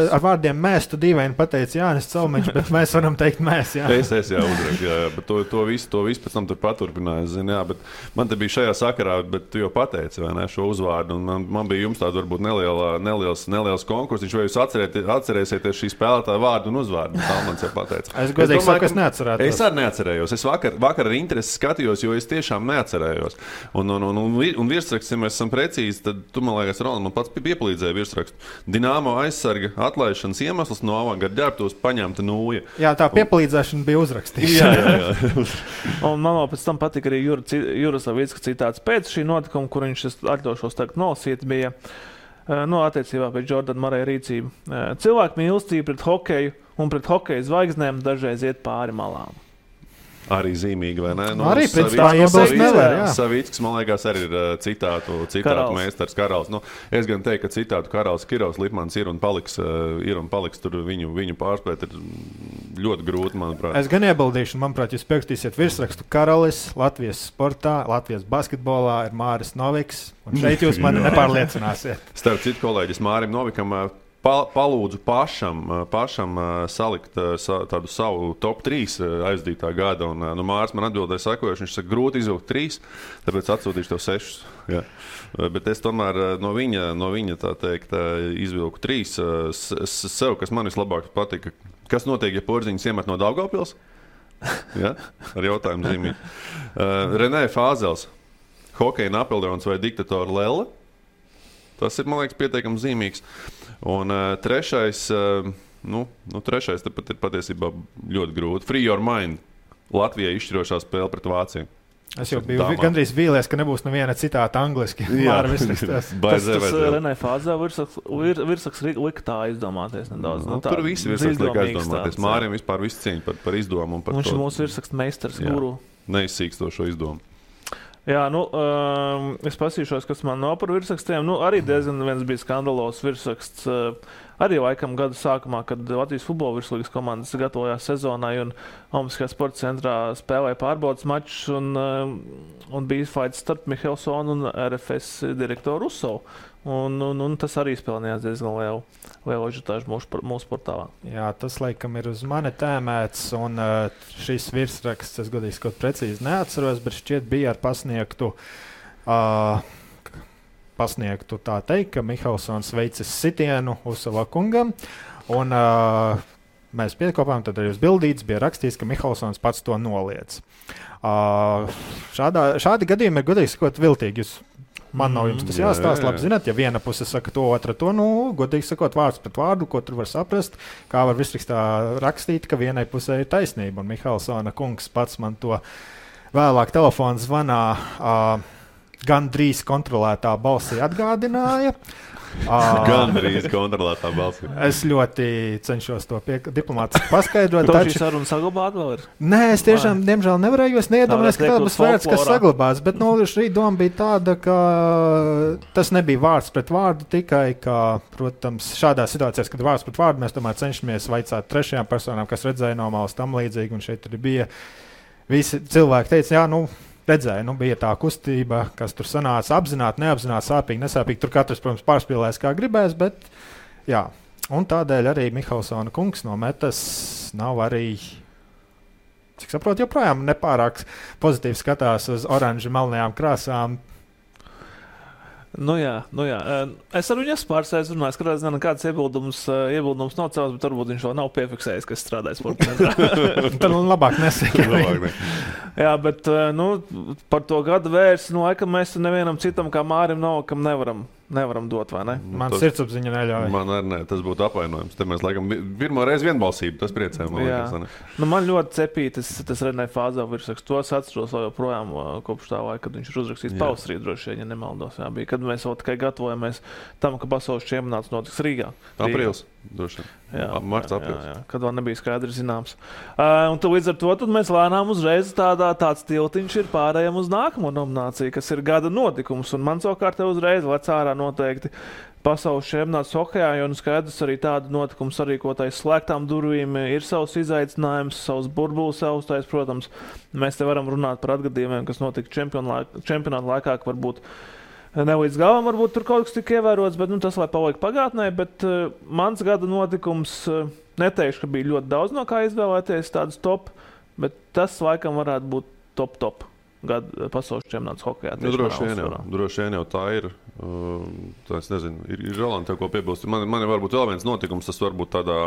ar vārdiem mēs, tu dīvaini pateici Jānis Calmeņš, bet mēs varam teikt mēs, jā. Es uzraku, bet to visu pēc tam tur paturpināju, bet man te bija šajā sakarā, bet tu jau pateici, vai ne, šo uzvārdu, un man bija jums tāda varbūt neliels konkurss, vai jūs atcerēsieties šī spēlētāja vārdu un uzvārdu, tā man jau pateica. Es godīgi saku, es neatcerētos. Es arī neatcerējos, es vakar ar interesi skatījos, jo es tiešām neatcerējos. Un virsraksts, ja mēs esam precīzi, tad tu, man liekas, man pats piepalīdzēja virsrakstu. Dinamo aizsarga atlaišanas iemesls no avangarda ģērbtos paņemta nūja. Jā, tā piepalīdzēšana bija uzrakstīta. Jā. Un man pēc tam patika arī Juras Savicka citāts pēc šī notikuma, kur viņš atļaušos tagad nolasīt, bija attiecībā pēc Jordana Marais rīcību. Cilvēku mīlestība pret hokeju un pret hokeja zvaigznēm dažreiz iet pāri malām. Arī zīmīgi, vai ne? Arī pēc tā iebilst nevar, jā. Savicks, man liekas, arī ir citātu meistars Karals. Es gan teiktu, ka citātu Karals Kirovs Lipmans ir un paliks tur viņu pārspēt ir ļoti grūti, manuprāt. Es gan iebildīšu, manuprāt, jūs pierakstīsiet virsrakstu Karalis, Latvijas sportā, Latvijas basketbolā ir Māris Noviks, un šeit jūs mani nepārliecināsiet. Starp citu kolēģis Mārim Novikam palūdzu pašam salikt tādu savu top 3 aizdītā gada, un Māris man atbildēja sakojuši, viņš saka, grūti izvilkt 3, tāpēc atsūtīšu tev 6. Jā. Bet es tomēr no viņa tā teikt izvilku 3 sev, kas man vislabāk patika. Kas notiek, ja Porziņš iemet no Daugavpils? Ja? Ar jautājumu zīmīt. Renē Fāzels. Hokeja Napoleons vai diktatora Lelle? Tas ir, man liekas, pietiekami zīmīgs. Un trešais, trešais tepat ir patiesībā ļoti grūti. Free Your Mind. Latvijai izšķirošā spēle pret Vāciju. Es jau biju gandrīz vīlies, ka nebūs neviena citāta angliski. Jā, tas Renē Fāzē virsaks lika tā izdomāties nedaudz. Tur visi virsaks lika aizdomāties. Mārim vispār visu cieņu par izdomu. Viņš ir mūsu virsaks meistars, guru. Neizsīkstošo izdomu. Jā, es pasīšos, kas man nav par virsrakstiem. Arī diezgan viens bija skandalos virsraksts. Arī laikam gada sākumā, kad Latvijas futbola virslīgas komandas gatavojās sezonai un Olimpiskajā sporta centrā spēlēja pārbaudas mačus un bija fights starp Mihelsonu un RFS direktoru Rusovu. Un tas arī spēlējās diezgan lielu ažiotāžu mūsu portālā. Jā, tas laikam ir uz mani tēmēts, un šis virsraksts, es godīgi kaut precīzi neatceros, bet šķiet bija ar pasniegtu tā teikt, ka Mihelsons veicis sitienu Usova kungam, un mēs piekopām, tad arī uz bildītes bija rakstīts, ka Mihelsons pats to noliedz. Šādi gadījumi ir godīgi sakot viltīgi. Man nav jums tas jāstāsta, labi zināt, ja viena puse saka to, otra to, godīgi sakot, vārds pret vārdu, ko tur var saprast, kā var visrakstā rakstīt, ka vienai pusē ir taisnība, un Mihelsona kungs pats man to vēlāk telefona zvanā gan drīz kontrolētā balsī atgādināja. Gandrīz kontrolētā balsī. Es ļoti cenšos to diplomātiski paskaidrot. Taču šī saruna saglabāt vēl ir? Nē, es tiešām, diemžēl, nevarēju, es neiedomājos, ka tāda būs vērts, kas saglabās. Bet šī doma bija tāda, ka tas nebija vārds pret vārdu, tikai, ka, protams, šādās situācijās, kad vārds pret vārdu, mēs tomēr cenšamies vaicāt trešajām personām, kas redzēja no malas tam līdzīgi, un šeit arī bija visi cilvēki teica, jā, redzēju, bija tā kustība, kas tur sanāca apzināti, neapzināti, sāpīgi, nesāpīgi. Tur katrs, protams, pārspīlēs, kā gribēs, bet jā. Un tādēļ arī Mihelsona kungs no metas nav arī, cik saprotu, joprojām nepārāk pozitīvi skatās uz oranži melnajām krāsām. Jā. Es ar viņu esmu pārsēdis runājis, ka kāds iebildums nav cēlis, bet varbūt viņš vēl nav piefiksējis, kas strādājas sportā. Tad labāk nesaka. Jā, bet par to gadu vērsi, laikam mēs nevienam citam kā Mārim kam nevaram dot, vai ne? Man sirdsapziņa neļauj. Man arī ne, tas būtu apvainojums. Te mēs laikam pirmo reizi vienbalsību, tas priecē. Man ļoti cepīja tas Renē Fāzē virsraksts. To es atceros vēl joprojām kopš tā laika, kad viņš ir uzrakstījis pavasarī droši vien, ja nemaldos. Jā, bija, kad mēs vēl tikai gatavojamies tam, ka pasaules čempionāts notiks Rīgā. Aprīlis, droši vien. Marts, aprīlis. Jā, kad vēl nebija skaidri zināms. Un līdz ar to mēs lēnām uzreiz tāds tiltiņš ir pārējām uz nākamo nomināciju, kas ir gada notikums. Un man savukārt uzreiz lec ārā noteikti pasaules čempionāts hokejā, jo skaidrs arī tādu notikumu sarīkotais slēgtām durvīm ir savs izaicinājums, savs burbulis savstais, protams. Mēs te varam runāt par atgadījumiem, kas notika čempionāta laikā, ka varbūt ne līdz galam, varbūt tur kaut kas tika ievērots, bet tas lai paliek pagātnē, bet mans gada notikums, neteikšu, ka bija ļoti daudz no kā izvēlēties tādus top, bet tas laikam varētu būt top. Gada pasaules čempionāts hokejā. Droši vien jau tā ir. Es nezinu, ir Roland tev ko piebilst. Man ir varbūt vēl viens notikums, tas varbūt tādā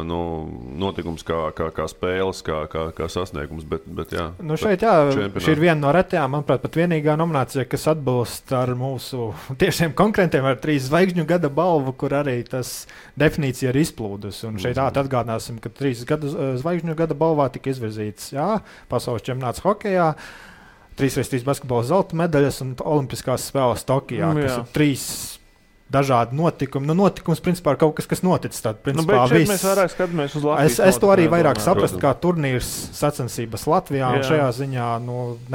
notikums kā spēles, kā sasniegums, bet jā. Šeit šī ir viena no retajām, manuprāt, pat vienīgā nominācija, kas atbilst ar mūsu tiešiem konkurentiem ar 3 zvaigžņu gada balvu, kur arī tas definīcija ir izplūdus. Un šeit atgādināsim, ka 3 zvaigžņu gada balvā tika izvirzīts, pasaules čempionāts hokejā, 3x3 basketbola zelta medaļas un olimpiskās spēles Tokijā, kas ir 3 dažādi notikumi. Notikums, principā, ir kaut kas noticis. Principā, mēs vairāk skatāmies uz Latvijas. Es to arī vairāk saprastu, kā turnīrs sacensības Latvijā, un šajā ziņā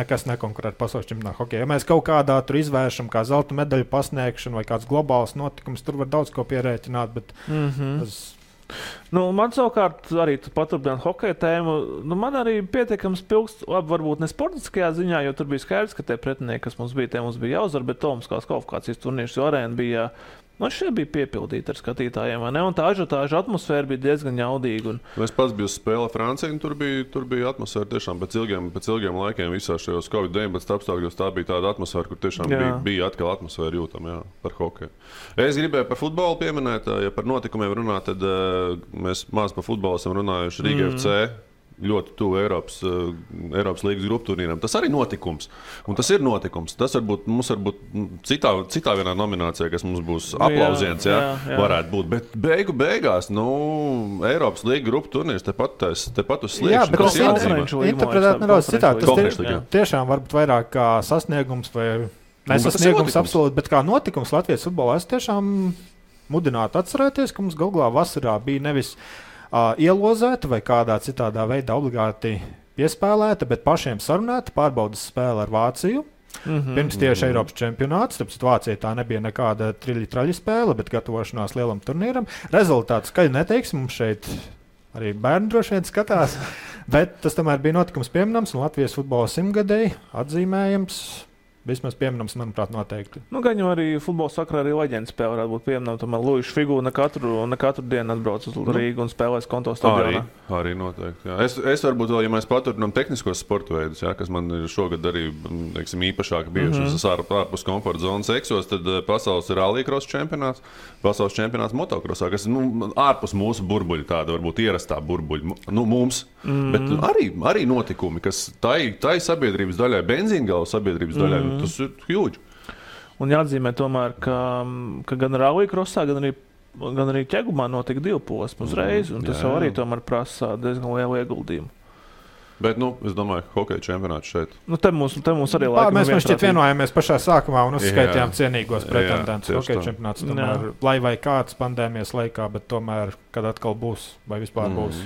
nekas nekonkurē ar pasaules čempionātu hokejā. Ja mēs kaut kādā tur izvēršam, kā zelta medaļu pasniegšanu vai kāds globāls notikums, tur var daudz ko pierēķināt, bet man savukārt arī paturpināt hokeja tēmu. Man arī pietiekams pilks, labi, varbūt ne sportiskajā ziņā, jo tur bija skaidrs, ka tie pretinieki, kas mums bija jāuzvar, bet Olimpiskās kvalifikācijas turnīrs, jo arēna bija, šeit bija piepildīta ar skatītājiem, vai ne? Un tā ažiotāža atmosfēra bija diezgan jaudīga. Es pats biju uz spēle Francijā, un tur bija atmosfēra tiešām pēc ilgiem laikiem visā šajos Covid-19 apstākļos. Tā bija tāda atmosfēra, kur tiešām bija atkal atmosfēra jūtama par hokeju. Es gribēju par futbolu pieminēt, ja par notikumiem runāt, tad mēs maz par futbolu esam runājuši Rīga FC. ļoti tuvu Eiropas līgas grupu turnīram. Tas arī notikums. Un tas ir notikums. Tas mums varbūt citā vienā nominācijā, kas mums būs aplausiens, varētu būt. Bet beigās, Eiropas līga grupu turnīrs tepat uz sliekšņa. Jā, bet tas interpretēt nedaudz citādi. Tas tiešām varbūt vairāk kā sasniegums vai nesasniegums absolūti, bet kā notikums Latvijas futbolā. Es tiešām mudinātu atcerēties, ka mums galvā vasarā bija nevis ielozēta vai kādā citādā veidā obligāti piespēlēta, bet pašiem sarunāta pārbaudas spēle ar Vāciju. Pirms tieši Eiropas čempionāts, tāpēc Vācija tā nebija nekāda traļi spēle, bet gatavošanās lielam turnīram. Rezultāts, ka neteiksim, mums šeit arī bērni droši vien skatās, bet tas tomēr bija notikums pieminams un Latvijas futbola 100-gadēji atzīmējams. Vismaz pieminams, manuprāt, noteikti. Gan jau arī futbola sakarā arī leģendas spēle varētu būt pieminama. Tomēr Luīša Figūra ne katru dienu atbrauc uz Rīgu un spēlēs konto stadionā. Arī noteikti. Jā. Es varbūt vēl, ja mēs paturinām tehniskos sporta veidus, kas man ir šogad arī īpašāk bijušas ārpus komforta zonas eksos, tad pasaules rallycross čempionāts, pasaules čempionāts motokrosā, kas ārpus mūsu burbuļa, tāda varbūt ierastā burbuļa, mums. Bet arī notikumi, kas tai sabiedrības daļai, benzīngala sabiedrības daļai, tas ir huge. Un jāatzīmē tomēr, ka gan rallycrossā, gan arī ķegumā notika 2 posmi uzreiz, un tas arī tomēr prasa diezgan lielu ieguldījumu. Bet, es domāju, hokeja čempionāts šeit. Te mums arī laikam mēs šķiet vienojāmies pašā sākumā un uzskaitījām cienīgos pretendentus. Hokeja čempionāts tomēr, lai vai kāds pandēmijas laikā, bet tomēr, kad atkal būs, vai vispār būs.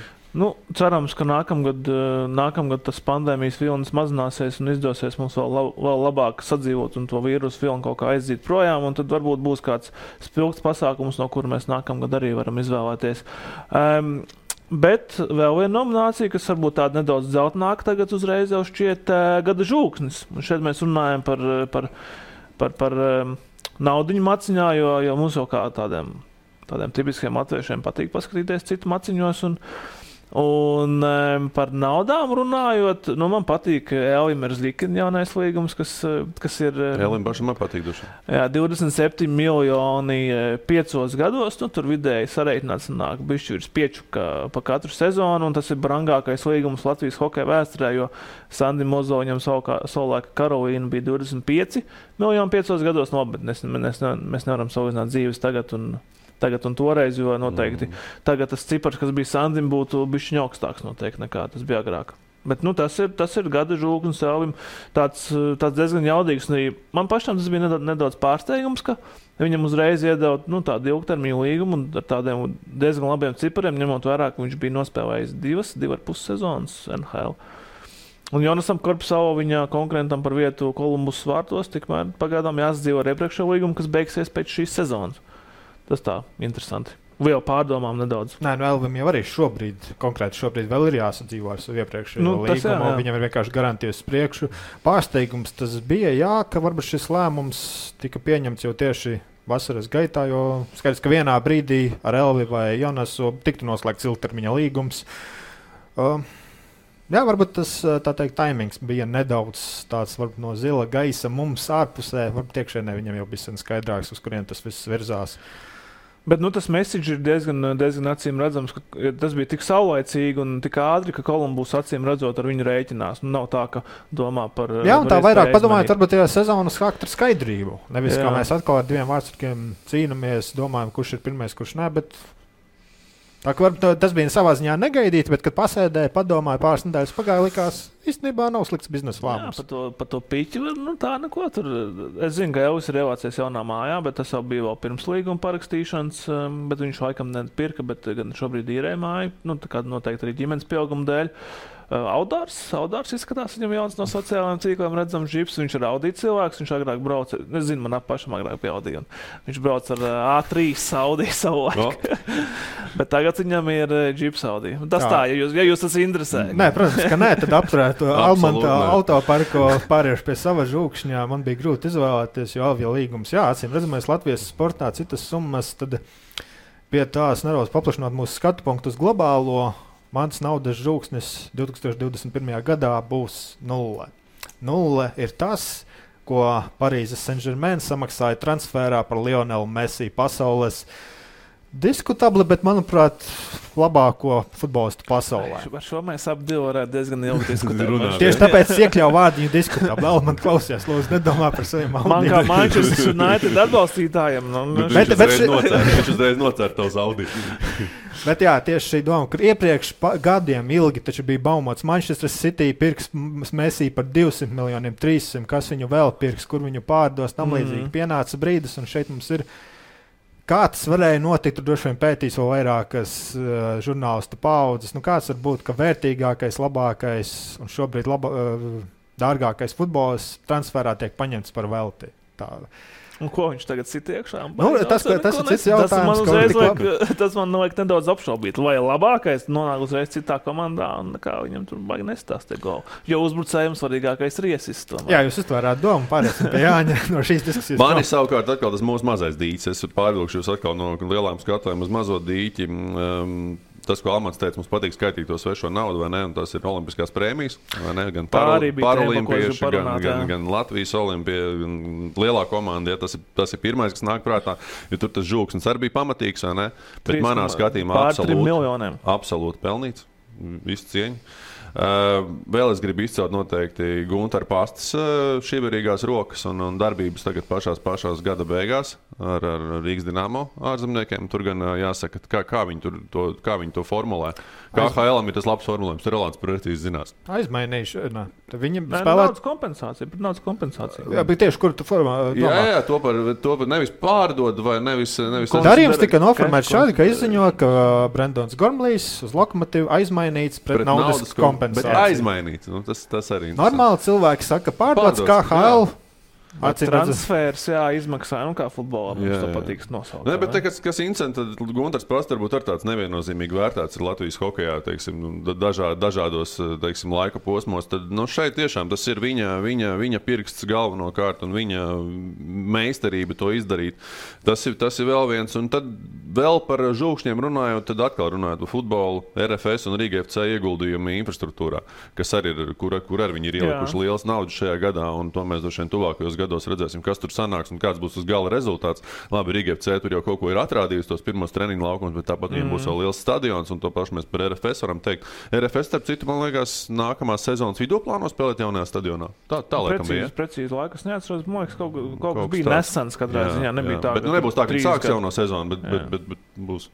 Cerams, ka nākamgad tas pandēmijas vilnis mazināsies un izdosies mums vēl labāk sadzīvot un to vīrusu vilni kaut kā aizzīt projām, un tad varbūt būs kāds spilgts pasākums, no kura mēs nākamgad arī varam izvēlēties. Bet vēl viena nominācija, kas varbūt tāda nedaudz dzeltenāka tagad uzreiz jau šķiet gada žūksnis. Un šeit mēs runājam par naudiņu maciņā, jo mums jau kā tādiem tipiskiem latviešiem patīk paskatīties citu maciņos. Un par naudām runājot, man patīk Elim Erzlikina jaunais līgums, kas ir... Elim pašam man patīk duši. Jā, 27 miljoni 5 gados, tur vidēji sareiķināts nāk bišķi virs 5 pa katru sezonu, un tas ir brangākais līgums Latvijas hokeja vēsturē, jo Sandim Mozoņam savulaika Karolīna bija 25 miljoni 5 gados, bet mēs nevaram salīdzināt dzīves tagad un toreiz, jo noteikti tagad tas cipars, kas bija Sandim, būtu bišķiņ augstāks noteikti nekā tas bija agrāk. Bet tas ir gada žūksnis Elim, tāds diezgan jaudīgs. Man pašam tas bija nedaudz pārsteigums, ka viņam uzreiz iedeva tādu ilgtermiņu līgumu un ar tādiem diezgan labiem cipariem, ņemot vērā, ka viņš bija nospēlējis 2,5 sezonas NHL. Un Jonasam Korpsalo viņa konkurentam par vietu Kolumbus vārtos, tikmēr pagaidām jāsadzīvo ar iepriekšējo līgumu, kas beigsies pēc šīs sezonas. Tas tā, interesanti. Vēl pārdomām nedaudz. Nē, Elvim jau arī šobrīd vēl ir jāsadzīvo ar savu iepriekšējo līgumu. Viņam ir vienkārši garantijas priekšu. Pārsteigums tas bija, ka varbūt šis lēmums tika pieņemts jau tieši vasaras gaitā, jo skaidrs, ka vienā brīdī ar Elvi vai Jonasu tiktu noslēgts ilgtermiņa līgums. Varbūt tas, tā teikt, taimings bija nedaudz tāds varbūt no zila gaisa mums ārpusē. Varbūt iekšēnē viņam jau bija skaidrāks, uz kurien tas viss virzās. Bet tas message ir diezgan acīm redzams, ka tas bija tik saulaicīgi un tik ātri, ka Kolumbus acīm redzot ar viņu rēķinās. Nav tā, ka domā par... Jā, un tā vairāk padomājot varbūt tajā sezonas charakteru skaidrību. Nevis, kā mēs atkal ar 2 vārdsargiem cīnamies, domājam, kurš ir pirmais, kurš ne, bet... Tā, tas bija savā ziņā negaidīti, bet, kad pasēdēja, padomāja pāris nedēļas pagāja, likās, īstenībā nav slikts biznesa lēmums. Jā, par to piķi, tā neko tur. Es zinu, ka Elvis ir ievācies jaunā mājā, bet tas jau bija vēl pirms līguma parakstīšanas, bet viņš laikam nepirka, bet gan šobrīd īrē māju, tā kā noteikti arī ģimenes pieauguma dēļ. Audārs izskatās, viņam jauns no sociālajiem tīkliem redzams džips, viņš ir Audi cilvēks, viņš agrāk brauca, es zinu, man pašam agrāk pie Audi, un viņš brauc ar A3 Audi savu laiku, bet tagad viņam ir džips Audi. Tas tā, ja jūs tas interesē. Nē, protams, ka nē, tad apturētu Almanta autoparko pāriešu pie sava žūkšņā, man bija grūti izvēlēties, jo Alvija līgums, acīm redzamais Latvijas sportā citas summas, tad pie tās nedaudz paplašināt mūsu skatu punktu uz globālo. Mans naudas žūksnis 2021. gadā būs 0. 0 ir tas, ko Parīzes Saint-Germain samaksāja transferā par Lionelu Messi pasaules diskutabli, bet, manuprāt, labāko futbolistu pasaulē. Par šo mēs abi varētu diezgan ilgi diskutēt. Tieši tāpēc iekļauju vārdiņu diskutabli. Vēl man klausies, lūdzu, nedomā par saviem maldiem. Man kā Manchester United atbalstītājiem. Viņš uzreiz nocēr tavs Audi. Bet jā, tieši šī doma, kur iepriekš gadiem ilgi taču bija baumots Manchester City pirks Messi par 200 miljoniem, 300, kas viņu vēl pirks, kur viņu pārdos, tam līdzīgi. Pienāca brīdis, un šeit mums ir kā tas varēja notikt, tur droši vien pētīs vēl vairākas žurnālistu paudzes. Kāds var būt, ka vērtīgākais, labākais un šobrīd dārgākais futbols transferā tiek paņemts par velti? Tā. Un ko viņš tagad sit iekšā? Tas ir cits jautājums. Tas man liek nedaudz apšaubīt. Vai labākais nonāk uzreiz citā komandā un kā viņam tur baigi nestāst golu. Jo uzbrucējiem svarīgākais ir iesis. Jā, jūs uztvērāt domu, pārēsim pie Jāņa no šīs diskusijas. Mani savukārt atkal tas mūsu mazais dīķis. Es pārvilkšu jūs atkal no lielām skatēm uz mazo dīķi. Tas, ko Almans teica, mums patīk skaitīt to svešo naudu, vai ne? Un tas ir olimpiskās prēmijas, vai ne? Gan paralimpieši, gan Latvijas olimpija, gan lielā komanda. Ja, tas ir pirmais, kas nāk prātā, jo tur tas žūksnis arī bija pamatīgs, vai ne? Bet manā skatījumā absolūti pelnīts. Visu cieņu. Vēl es gribu izcelt noteikti Gunter Pastas šīverīgās rokas un darbības tagad pašās gada beigās ar Rīgas Dinamo ārzemniekiem. Tur gan jāsaka, kā viņi to formulē. KHL-am ir tas labs formulējums, tur Rolands precīzi zinās. Aizmainīšu. Viņi spēlē naudas kompensācija. Jā, bet tieši kur tu formā? Jā, to par nevis pārdod vai nevis darījums tika noformēts šādi, ka izziņo, ka Brendons Gormlijs uz Lokomotīvu aizmainīts pret naudas kompensāciju. Bet aizmainīts. Tas arī normāli cilvēki saka, pārdots KHL. Transfers, izmaksā, kā futbolam mums to patīk nosaukt. Ne, bet kas interesanti, tad Gunters Pasta varbūt ar tāds neviennozīmīgi vērtēts ir Latvijas hokejā, teiksim, dažādos, teiksim, laika posmos, tad, šeit tiešām tas ir viņa pirksts galvenokārt un viņa meistarība to izdarīt. Tas ir vēl viens, un tad vēl par žūkšņiem runājot, tad atkal runājot par futbolu, RFS un Rīga FC ieguldījumi infrastruktūrā, kas arī ir, kur arī viņi ir ielikuši liels naudas šajā gadā, un to mēs droši vien tuvākajos gados redzēsim, kas tur sanāks un kāds būs uz gala rezultāts. Labi, Rīga FC tur jau kaut ko ir atrādījusi, tos pirmos treniņu laukumus, bet tāpat viņiem būs vēl liels stadions, un to pašu mēs par RFS varam teikt. RFS, starp citu, man liekas, nākamās sezonas vidū plāno spēlēt jaunajā stadionā. Tā laikam bija. Precīzi laikas neatceros, man liekas, kaut kas bija nesens katrā ziņā, nebija tā. Bet nebūs tā, ka sāks jauno sezonu, bet būs.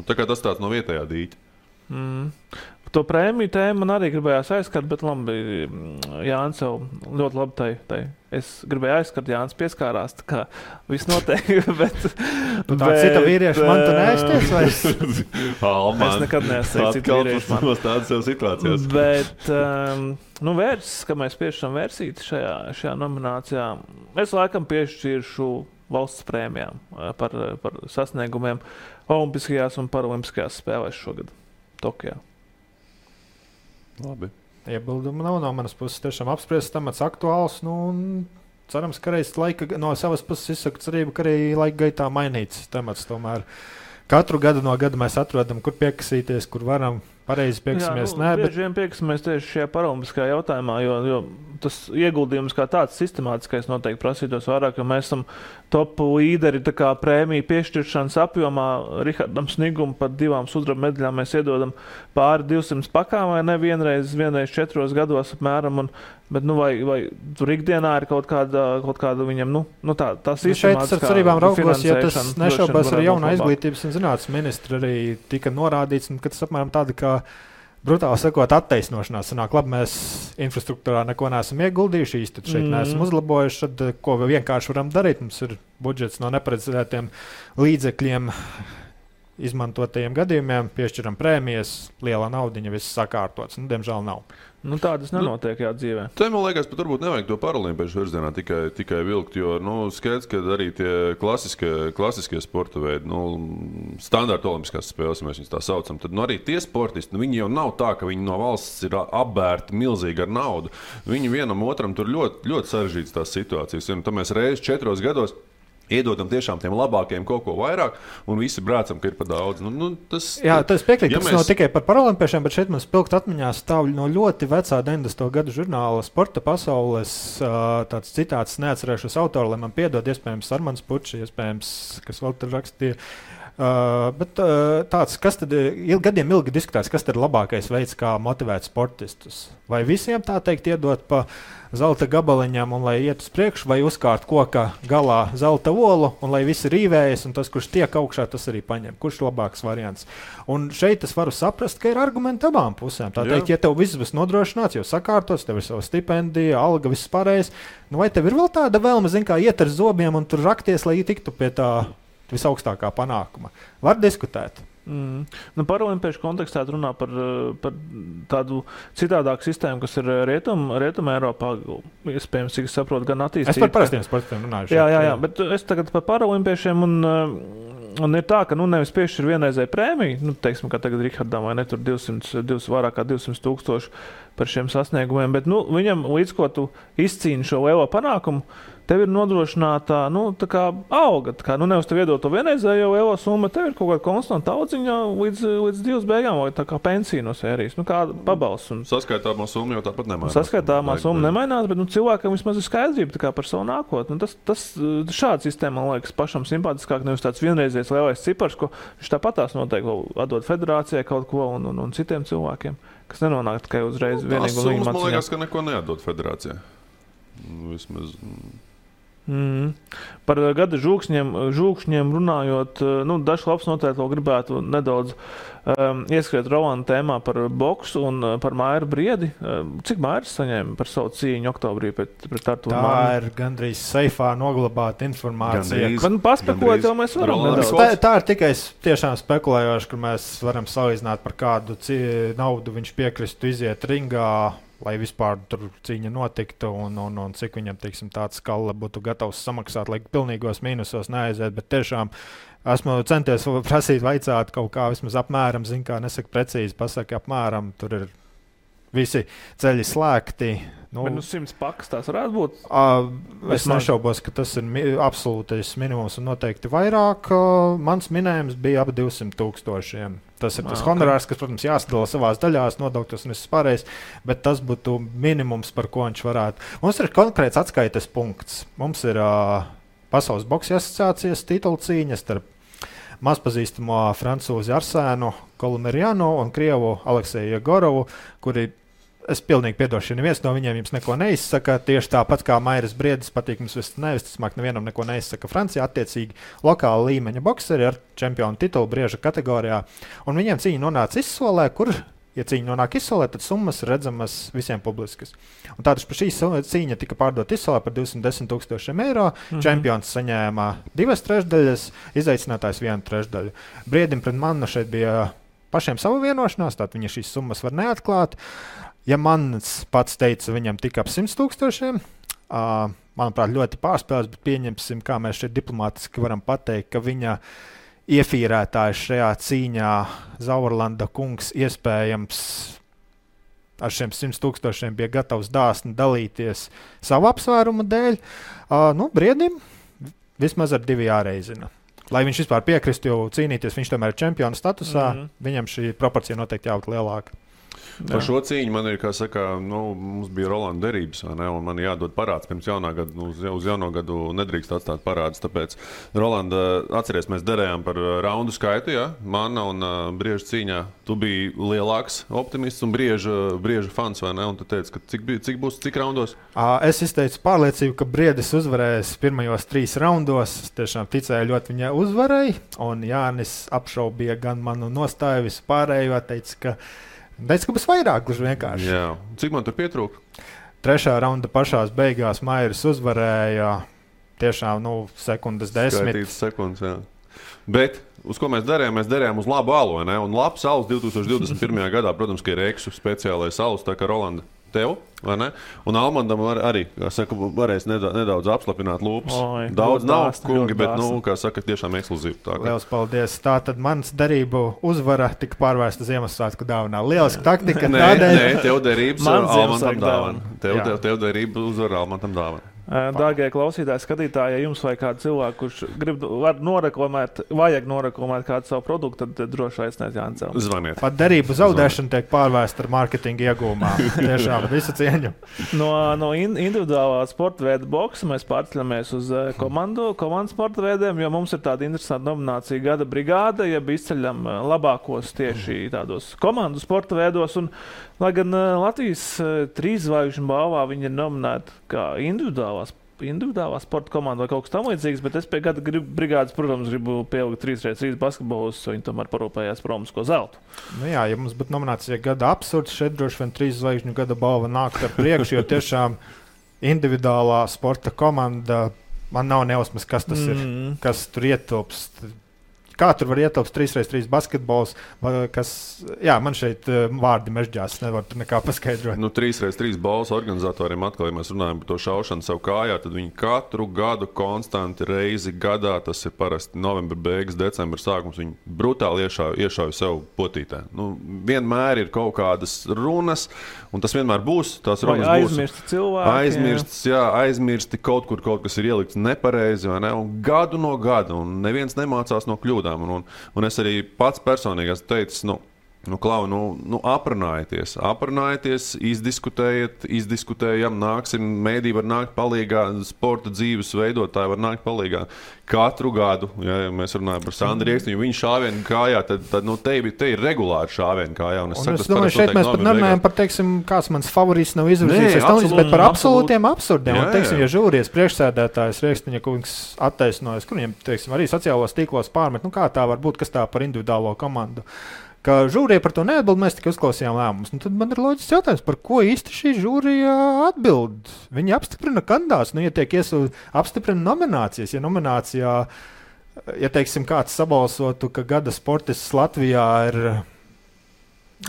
Tā kā tas tāds no vietējā dīķa. To prēmiju tēmu man arī gribējās aizskart, bet labi, Jānis jau ļoti labi es gribēju aizskart, Jānis pieskārās, tā kā viss notiek, bet... tā cita vīrieša man tu neaizties vairs? Es nekad neaizties cita vīrieša man. Tādas jau situācijas. Bet, vērsis, ka mēs piešķiram versiti šajā nominācijā, es laikam piešķiršu valsts prēmijām par sasniegumiem olimpiskajās un paralimpiskajās spēlēs šogad Tokijā. Labi. Iebildumu nav no manas puses. Tiešām apspriests temats aktuāls. Un cerams, ka reiz no savas puses izsaku cerību, ka arī laika gaitā mainīts temats. Tomēr katru gadu no gada mēs atrodam, kur piekasīties, kur varam. Pareizi piekasimies. Bieži vien piekasimies tieši šajā paralimpiskajā jautājumā, jo tas ieguldījums kā tāds sistemātiskais noteikti prasītos vairāk, jo mēs esam top līderi tā kā prēmiju piešķiršanas apjomā. Rihardam Snigum par 2 sudraba medaļām mēs iedodam pāri 200 pakām vai ne vienreiz 4 gados apmēram. Bet vai tur ikdienā ir kaut kāda viņam, tā sistemātiskā šeit ar cerībām raugos, ja tas nešaubās ar jaunā izglītības un zinātnes ministra arī tika norādīts, ka tas apmēram tāda kā brutāli sakot attaisnošanās. Sanāk, labi, mēs infrastruktūrā neko neesam ieguldījuši, tad šeit neesam uzlabojuši, tad ko vienkārši varam darīt? Mums ir budžets no neparedzētiem līdzekļiem izmantotajiem gadījumiem, piešķiram prēmijas, liela naudiņa, viss sakārtots. Diemžēl nav. Tādas nenotiek dzīvē. Te, man liekas, pat varbūt nevajag to paralimpiešu virzienā tikai vilkt, jo skaidrs, ka arī tie klasiskie sporta veidi, standarta olimpiskās spēles, mēs viņus tā saucam, tad arī tie sportisti, viņi jau nav tā, ka viņi no valsts ir apbērti milzīgi ar naudu. Viņi vienam otram tur ļoti, ļoti sarežģītas tās situācijas. Tad mēs reizi 4 gados iedodam tiešām tiem labākajiem kaut ko vairāk, un visi brācam, ka ir par daudz. Tas piekrīt, ka tas nav tikai par paralimpiešiem, bet šeit man spilgt atmiņā stāv no ļoti vecā 90. gadu žurnāla Sporta pasaules tāds citāts, neatcerēšos autoru, lai man piedod, iespējams Armans Pučs, iespējams, kas vēl tur rakstīja, Bet tāds, kas tad gadiem ilgi diskutēts, kas tad ir labākais veids, kā motivēt sportistus? Vai visiem tā teikt iedot pa zelta gabaliņām un lai iet uz priekšu, vai uzkārt koka galā zelta olu un lai visi rīvējas un tas, kurš tiek augšā, tas arī paņem. Kurš ir labāks variants? Un šeit es varu saprast, ka ir argumenti abām pusēm. Tā teikt, ja tev viss būs nodrošināts, jau sakārtots, tev ir sava stipendija, alga, viss pārējais, nu vai tev ir vēl tāda vēlme, kā iet ar zobiem un tur rakties, lai tiktu pie tā visaugstākā panākuma? Var diskutēt. Nu, Paraolimpiešu kontekstā runā par tādu citādāku sistēmu, kas ir Rietuma Eiropā, iespējams, cik es saprotu, gan attīstīta. Es par parastiem sportiem runāju. Jā, bet es tagad par paraolimpiešiem un ir tā, ka nevis piešķir vienreizēju prēmiju, teiksim, kā tagad Rihardam vai ne, tur vairāk kā 200,000 par šiem sasniegumiem, bet viņam līdz ko tu izcīni šo lielo panākumu, tev ir nodrošināta tā kā alga. Nevis tev iedot to vienreizējo lielo summu, tev ir kaut kāda konstanta audziņa līdz dzīves beigām, vai tā kā pensija no sērijas. Kā pabalsts. Saskaitāmā summa jau tāpat nemainās. Saskaitāmā summa nemainās, bet cilvēkam vismaz ir skaidrība par savu nākotni. Šāda sistēma, man liekas, pašam simpātiskāk, nevis tāds vienreizējs lielais cipars, ko viņš tāpatās noteikti atdod federācijai kaut ko un citiem cilvēkiem, kas nenonāk tikai uzreiz vienīgi un viņa man liekas, ka neko neatdod federācijai. Vismaz... Par gada žūkšņiem runājot, dažs labs noteikti vēl gribētu nedaudz ieskriet Rolanda tēmā par boksu un par Mairu Briedi. Cik Mairis saņēma par savu cīņu oktobrī pret Arturu Manu? Tā ir gandrīz seifā noglabāta informācija. Paspekulēt, jau mēs varam nedaudz. Tā ir tikai tiešām spekulējoši, ka mēs varam salīdzināt, par kādu naudu viņš piekristu iziet ringā, lai vispār tur cīņa notiktu un cik viņam, teiksim, tāds skala būtu gatavs samaksāt, lai pilnīgos mīnusos neaiziet, bet tiešām esmu centies prasīt, vaicāt kaut kā vismaz apmēram, nesaka precīzi, pasaka apmēram, tur ir visi ceļi slēgti. Bet 100 pakas tās varētu būt? Es nešaubos, ka tas ir absolūtais minimums un noteikti vairāk. Mans minējums bija ap 200,000. Tas ir tas honorārs, kas, protams, jāsadala savās daļās, nodokļos un viss pārējais, bet tas būtu minimums, par ko viņš varētu. Mums ir konkrēts atskaites punkts. Mums ir Pasaules boksa asociācijas titula cīņa starp mazpazīstamo francūzi Arsēnu Kolumerianu un krievu Alekseju Jegorovu, kuri, es pilnīgi piedošu, ja neviens no viņiem jums neko neizsaka, tieši tāpat kā Mairis Briedis patīk mums nevisticamāk nevienam neko neizsaka Francijā, attiecīgi lokāla līmeņa bokseri ar čempionu titulu brieža kategorijā, un viņiem cīņa nonāca izsolē, kur, ja cīņa nonāk izsolē, tad summas redzamas visiem publiskas. Un tātad par šī cīņa tika pārdot izsolē par 210,000 eiro, čempions saņēma 2/3, izaicinātājs 1/3. Briedim pret Manu šeit bija pašiem savu vienošanās, tātad viņa šīs summas var neatklāt. Ja Mans pats teica, viņam tika ap 100,000, manuprāt, ļoti pārspēlēts, bet pieņemsim, kā mēs šeit diplomātiski varam pateikt, ka viņa iefīrētājs šajā cīņā Zaurlanda kungs iespējams ar šiem 100,000 bija gatavs dāsni dalīties savu apsvērumu dēļ. Briedim vismaz ar 2 jāreizina. Lai viņš vispār piekristu jau cīnīties, viņš tomēr ir čempiona statusā, viņam šī proporcija noteikti jābūt lielāka. Par šo cīņu man ir, kā saka, mums bija Rolanda derības, vai ne, un man jādod parāds pirms jaunā gada, uz jauno gadu nedrīkst atstāt parādus, tāpēc Rolanda, atceries, mēs derējām par raundu skaitu, ja, Mana un Brieža cīņā, tu biji lielāks optimists un Brieža fans, vai ne, un tu teici, ka cik raundos? Es izteicu pārliecību, ka Briedis uzvarēs pirmajos 3 raundos, es tiešām ticēju ļoti viņa uzvarai, un Jānis apšaubīja gan manu nostāju visu pārējo, teica, ka būs vairāk, gluži vienkārši. Jā. Cik man tur pietrūka? 3. raunda pašās beigās Mairis uzvarēja tiešām, sekundes 10. Skaitītas sekundes, jā. Bet, uz ko mēs darījām? Mēs darījām uz labu alu, vai ne? Un labs alus 2021. gadā, protams, ka ir Eksu speciālais alus, tā kā Rolanda tev, vai ne? Un Almandam arī, kā saka, varēs nedaudz apslapināt lūpas. Daudz nav, kungi, bet, kā saka, tiešām ekskluzīvi. Liels paldies. Tātad mans darību uzvara tika pārvērsta Ziemassvētku dāvanā. Lieliski taktika. Nē, tev derības Almantam dāvana. Tev derība uzvara Almantam dāvana. Dārgie klausītāji, skatītāji, ja jums vai kādu cilvēku, kurš vajag noreklamēt kādu savu produktu, tad droši aiciniet Jānis. Zvaniet. Pat derību zaudēšana tiek pārvēsta ar mārketinga iegūmā. Tiešām visu cieņu. No individuālā sporta veida boksa mēs pārceļamies uz komandu sporta veidiem, jo mums ir tāda interesanta nominācija Gada brigāde, ja izceļam labākos tieši tādos komandu sporta veidos. Un, lai gan Latvijas 3 zvaigžņu balvā viņi ir nominēti kā individuālā sporta komanda vai kaut kas tam līdzīgs, bet es pie Gada brigādes, protams, gribu pielikt 3x3 basketbolus, jo viņi tomēr parūpējās par olimpisko zeltu. Nu jā, ja mums būtu nominācija Gada absurds, šeit droši vien 3 zvaigžņu Gada balva nāk ar priekšu, jo tiešām individuālā sporta komanda, man nav nejausmas, kas tas ir, kas tur ietilpst. Kā tur var ietilpst 3x3 basketbols, man šeit vārdi mežģās, nevar tur nekā paskaidrot. 3x3 balvas organizatoriem atkal, ja mēs runājam par to šaušanu savu kājā, tad viņi katru gadu konstanti reizi gadā, tas ir parasti novembra beigas, decembra sākums, viņi brutāli iešauj sev potītē. Vienmēr ir kaut kādas runas, un tas vienmēr būs, tās runas būs. Aizmirsti cilvēki. Aizmirsti kaut kur kaut kas ir ielikts nepareizi, vai ne? Un gadu no gada, un neviens nemācās no kļūdām. Un es arī pats personīgi esmu teicis, aprunājieties, izdiskutējam, nāksim, mēdī var nākt palīgā, sporta dzīves veidotāji var nākt palīgā. Katru gadu, ja mēs runājam par Sandru Riekstiņu, viņa šāvienu kājā, tad te ir regulāri šāvienu kājā. Es domāju, šeit mēs pat nerunājam par, kāds mans favorīts nav izvirzījies, bet par absolūtiem absurdiem. Un, ja žūrijas priekšsēdētājs Riekstiņa kungs attaisnojas, kuriem, arī sociālos tīklos pārmet, kā tā var būt, kas tā par individuālo komandu. Ka žūrija par to neatbild, mēs tikai uzklausījām lēmumus. Tad man ir loģisks jautājums, par ko īsti šī žūrija atbild? Viņi apstiprina kandidātus, ja tiek apstiprina nominācijas. Ja nominācijā, kāds sabalsotu, ka gada sportists Latvijā ir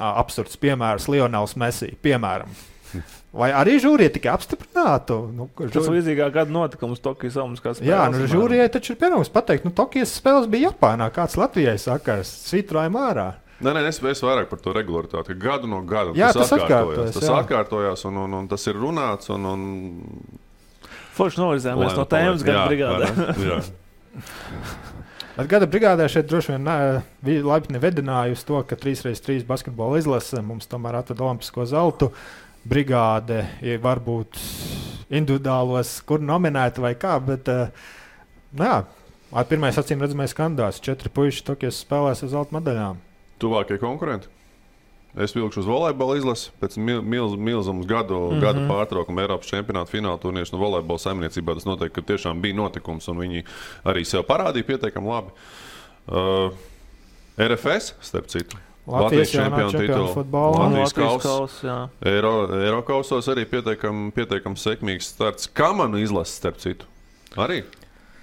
absurds piemērs Lionels Messi, piemēram. Vai arī žūrija tikai apstiprinātu? Tas līdzīgā gada notikums Tokijas Olimpiskās spēles. Jā, žūrijai taču ir pienākums pateikt, Tokijas spēles bija Japānā, kāds Latvijai sakars, svītrojam ārā. Nē, es vairāk par to regularitāti, ka gadu no gada tas atkārtojas, un tas ir runāts. Forši novirzējāmies no tēmas Gada brigādē. Bet Gada brigādē šeit droši vien laipni vedināja uz to, ka 3x3 basketbola izlase mums tomēr atved olimpisko zeltu. Brigāde varbūt individuālos, kur nominēta vai kā, bet pirmais acīm redzamais kandidāts, 4 puiši Tokijas spēlēs uz zelta medaļām. Tuvākie konkurenti. Es vilkšu uz volejbola izlasi pēc milzumas gadu pārtraukuma Eiropas čempionāta fināla turnīrs no volejbola saimniecībā. Tas noteikti, ka tiešām bija notikums, un viņi arī sev parādīja pietiekami labi. RFS, starp citu. Latvijas čempionu futbola. Latvijas kausa. Eirokausos arī pietiekami sekmīgs starts. Kamanu izlases, starp citu. Arī.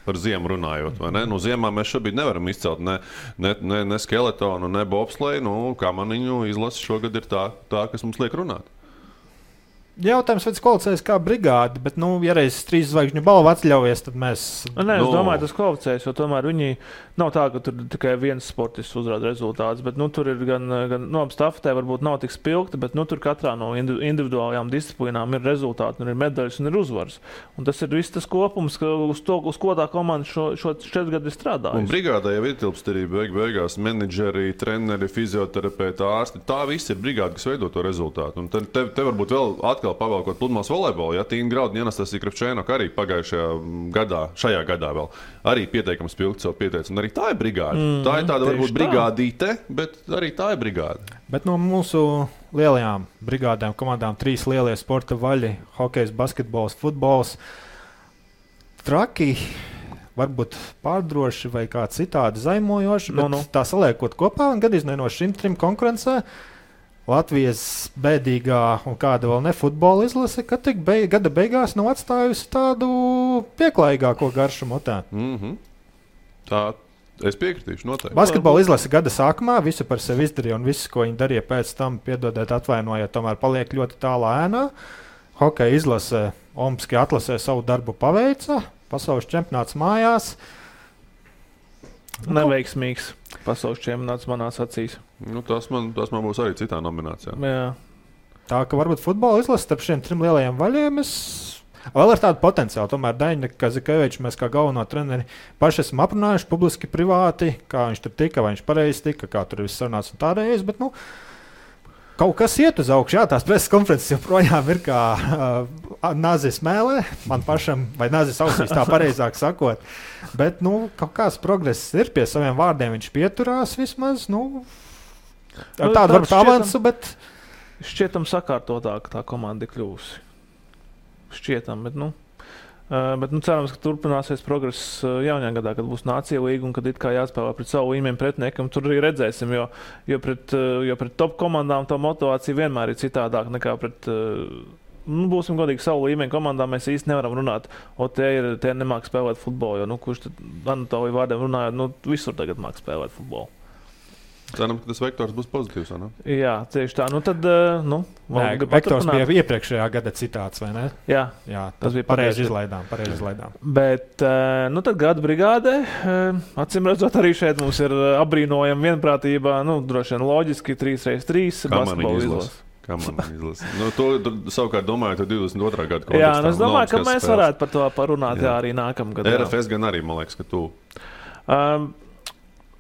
Par ziemu runājot, vai ne? Ziemā mēs šobrīd nevaram izcelt ne skeletonu, ne bobsleju. Kamaniņu izlase šogad ir tā, kas mums liek runāt. Jautājums, vai tas kvalificējas kā brigāde, bet, ja reiz 3 zvaigžņu balvu atļaujies, tad mēs... Es domāju, tas kvalificējas, jo tomēr viņi nav tā, ka tur tikai viens sportists uzrāda rezultātus, bet, tur ir gan stafetē varbūt nav tik spilgti, bet, tur katrā no individuālajām disciplīnām ir rezultāti, ir medaļas un ir uzvaras. Un tas ir viss tas kopums, uz ko tā komanda šo 4 gadu ir strādājusi. Un brigādē jau ietilpst arī beigās menedžeri, treneri, fizioterapeiti, ārsti. Tā viss ir brigāde, kas veido to rezultātu. Un te varbūt vēl pavalkot pludmales volejbolu, Tīna Graudņa, Anastasija Kravčēnoka arī pagājušajā gadā, šajā gadā vēl, arī pietiekami spilgti sev pieteica. Un arī tā ir brigāde. Tā ir tāda varbūt brigādīte, bet arī tā ir brigāde. Bet no mūsu lielajām brigādēm, komandām 3 lielie sporta vaļi, hokejs, basketbols, futbols, traki, varbūt pārdroši vai kā citādi zaimojoši, bet tā saliekot kopā un gadījumā no šim 3 konkurencē, Latvijas bēdīgā un kāda vēl ne futbola izlase, ka gada beigās nav atstājusi tādu pieklājīgāko garšu motē. Tā, es piekritīšu noteikti. Basketbola izlase gada sākumā visu par sevi izdarīja un visu, ko viņi darīja pēc tam, piedodiet, atvainojiet, tomēr paliek ļoti tālā ēnā. Hokeja izlase Olimpiskajā atlasē savu darbu paveica, pasaules čempionāts mājās. Neveiksmīgs pasaules čempionāts manās acīs. Tas man būs arī citā nominācijā. Jā. Tā ka varbūt futbola izlase starp šiem 3 lielajiem vaļiem es Vēl ar tādu potenciālu. Tomēr Daņa Kazikevičs, mēs kā galveno treneri paši esam aprunājuši publiski, privāti, kā viņš tur tika, vai viņš pareizi tika, kā tur viss sarunāts un tādējais. Bet, kaut kas iet uz augšu. Jā, tās preses konferences joprojām ir kā nāzis mēlē, man pašam, vai nāzis ausīs, tā pareizāk sakot. Bet, kaut kāds progress ir pie saviem vārdiem. Viņš pieturās vismaz, tādu varbūt avansu, bet... Šķietam sakārtotāk tā komanda ir kļūsi. Šķietam, bet cerams, ka turpināsies progress jaunajā gadā, kad būs Nācija līga un kad it kā jāspēlē pret savu līmeni pretiniekam. Tur arī redzēsim, jo pret top komandām tā motivācija vienmēr ir citādāk nekā pret, būsim godīgi, savu līmeni komandām mēs īsti nevaram runāt. Tie nemāk spēlēt futbolu, jo, kurš tad Anatolija vārdiem runājot, visur tagad māk spēlēt futbolu. Ceram, ka tas vektors būs pozitīvs, vai ne? Jā, tieši tā. Tad, vektors bija iepriekšējā gada citāts, vai ne? Jā, tas bija pareizi izlaidām. Bet, tad gada brigādē, acīm redzot, arī šeit mums ir apbrīnojama vienprātība, droši vien loģiski 3x3 basketbola izlase. Kā man izlasa? To savukārt domāju, 22. gada kontekstā. Jā, es domāju, ka mēs varētu par to parunāt arī nākamgad. RFS gan arī, man liekas, ka tu...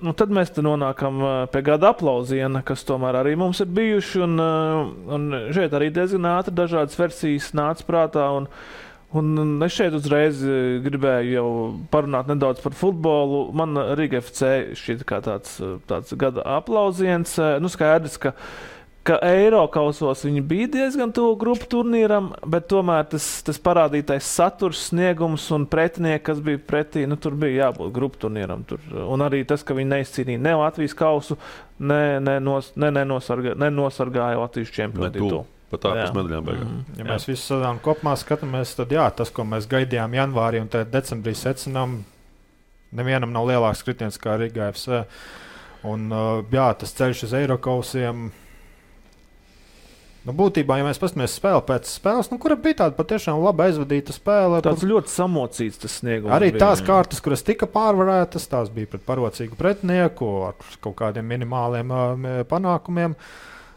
Tad mēs nonākam pie gada aplausiena, kas tomēr arī mums ir bijuši. Un šeit arī diezgan ātri dažādas versijas nāca prātā. Un es šeit uzreiz gribēju jau parunāt nedaudz par futbolu. Man Riga FC šķiet kā tāds gada aplausiens. Skaidrs, ka Eirokausos viņi bija diezgan tuvu grupu turnīram, bet tomēr tas parādītais saturs, sniegums un pretinieki, kas bija pretī, tur bija jābūt grupu turnīram. Un arī tas, ka viņi neizcīnīja ne Latvijas kausu, nenosargāja Latvijas čempionu. Pat ārpus medaļām beigās. Ja mēs visu sezonu kopumā skatāmies, tad tas, ko mēs gaidījām janvārī un decembrī secinām, nevienam nav lielāks kritiens kā Riga FC. Un tas ceļš uz Eirokausiem. Būtībā, ja mēs paskatāmies spēli pēc spēles, kura bija tāda patiešām labi aizvadīta spēle. Tāds ļoti samocīts tas sniegums. Arī tās kārtas, kuras tika pārvarētas, tās bija pret parocīgu pretinieku ar kaut kādiem minimāliem panākumiem.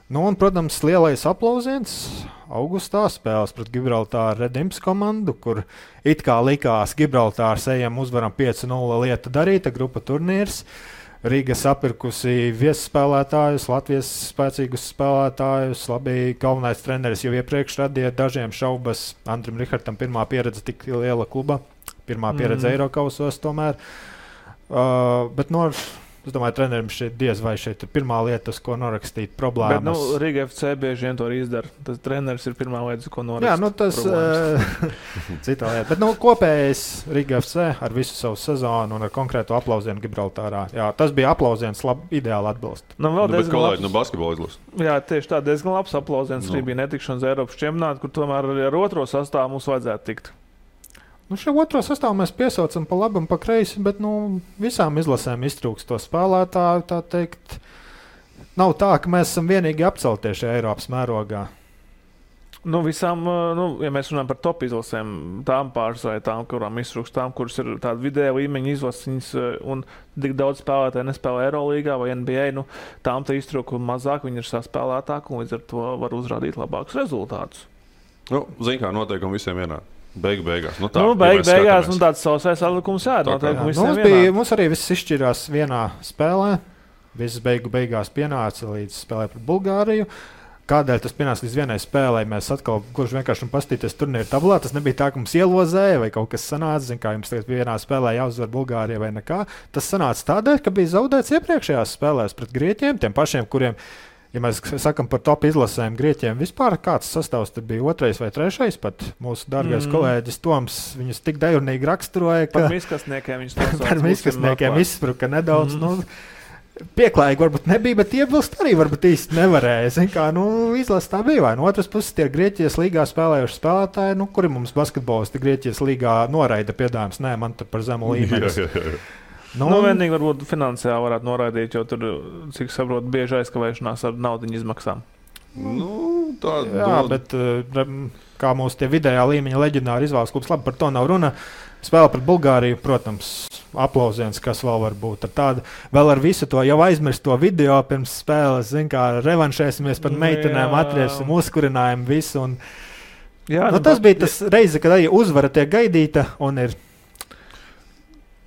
Un, protams, lielais aplausiens augustā spēles pret Gibraltāru Redimps komandu, kur it kā likās Gibraltārs ejam uzvaram 5-0 lieta darīta, grupa turnīrs. Rīga sapirkusi viesspēlētājus, Latvijas spēcīgus spēlētājus. Labi, galvenais treneris jau iepriekš radīja dažiem šaubas. Andrim Rihartam pirmā pieredze tik liela kluba, pirmā pieredze Eirokausos tomēr. Bet es domāju, trenerim šeit diez vai šeit ir pirmā lieta, uz ko norakstīt problēmas. Bet Riga FC bieži vien to izdara. Tas treneris ir pirmā lieta, uz ko norakstīt tas cita lieta. Bet kopējais Riga FC ar visu savu sezonu un ar konkrētu aplausienu Gibraltārā. Jā, tas bija aplausiens, ideāli atbilst. Bet kolēģi no basketbola izlases. Jā, tieši tā, diezgan labs aplausiens. Arī bija netikšanas Eiropas čempionātā, kur tomēr arī ar otro sastāvu mums vajadzētu tikt. Šo otro sastāvu mēs piesaucam pa labi un pa kreisi, bet visām izlasēm iztrūkst to spēlētāju. Tā teikt, nav tā, ka mēs esam vienīgi apceltie šajā Eiropas mērogā. Visām, ja mēs runājam par top izlasēm, tām pāris vai tām, kurām iztrūkst, tām, kuras ir tāda vidēja līmeņa izlases un tik daudz spēlētāji nespēlē Eirolīgā vai NBA, tām tā iztrūka mazāk, viņi ir saspēlētāki un līdz ar to var uzrādīt labākus rezultātus. Zini, kā noteikumi visiem vienādi. Beigās. Beigās tāds sausais atlikums mums arī viss izšķirās vienā spēlē. Visas beigās pienāca līdz spēlē pret Bulgāriju. Kādēļ tas pienāca līdz vienai spēlē? Mēs atkal gluži vienkārši pastīties turnīru tablā. Tas nebija tā, ka mums ielozēja vai kaut kas sanāca. Kā jums tagad vienā spēlē jāuzvar Bulgārija vai nekā. Tas sanāca tādēļ, ka bija zaudēts iepriekšējās spēlēs pret Grieķiem, tiem pašiem, kuriem... Ja mēs sakām par top izlasēm Grieķiem, vispār kāds sastāvs tur bija 2. vai 3. pat mūsu dārgais kolēģis Toms viņus tik dejurnīgi raksturoja, ka... Par miskastniekiem viņš to sauc. Par miskastniekiem izspruka nedaudz, pieklājīgi varbūt nebija, bet iebilst arī varbūt īsti nevarēja. Izlase tā bija, vai no otras puses tie Grieķijas līgā spēlējuši spēlētāji, kuri mums basketbolisti Grieķijas līgā noraida piedāvājums, nē, man tur par zemu līmeni. Vienīgi varbūt finansiāli varētu noraidīt, jo tur, cik saprotu, bieži aizkavēšanās ar naudiņu izmaksām. Bet kā mūsu tie vidējā līmeņa leģendāri izvēles klubs, labi, par to nav runa. Spēle pret Bulgāriju, protams, aplausiens, kas vēl var būt. Vēl ar visu to jau aizmirst to video pirms spēles, kā revanšēsimies par meitenēm, atriesim, uzkurinājumu visu. Jā, tas bija tas reize, kad arī uzvara tiek gaidīta un ir.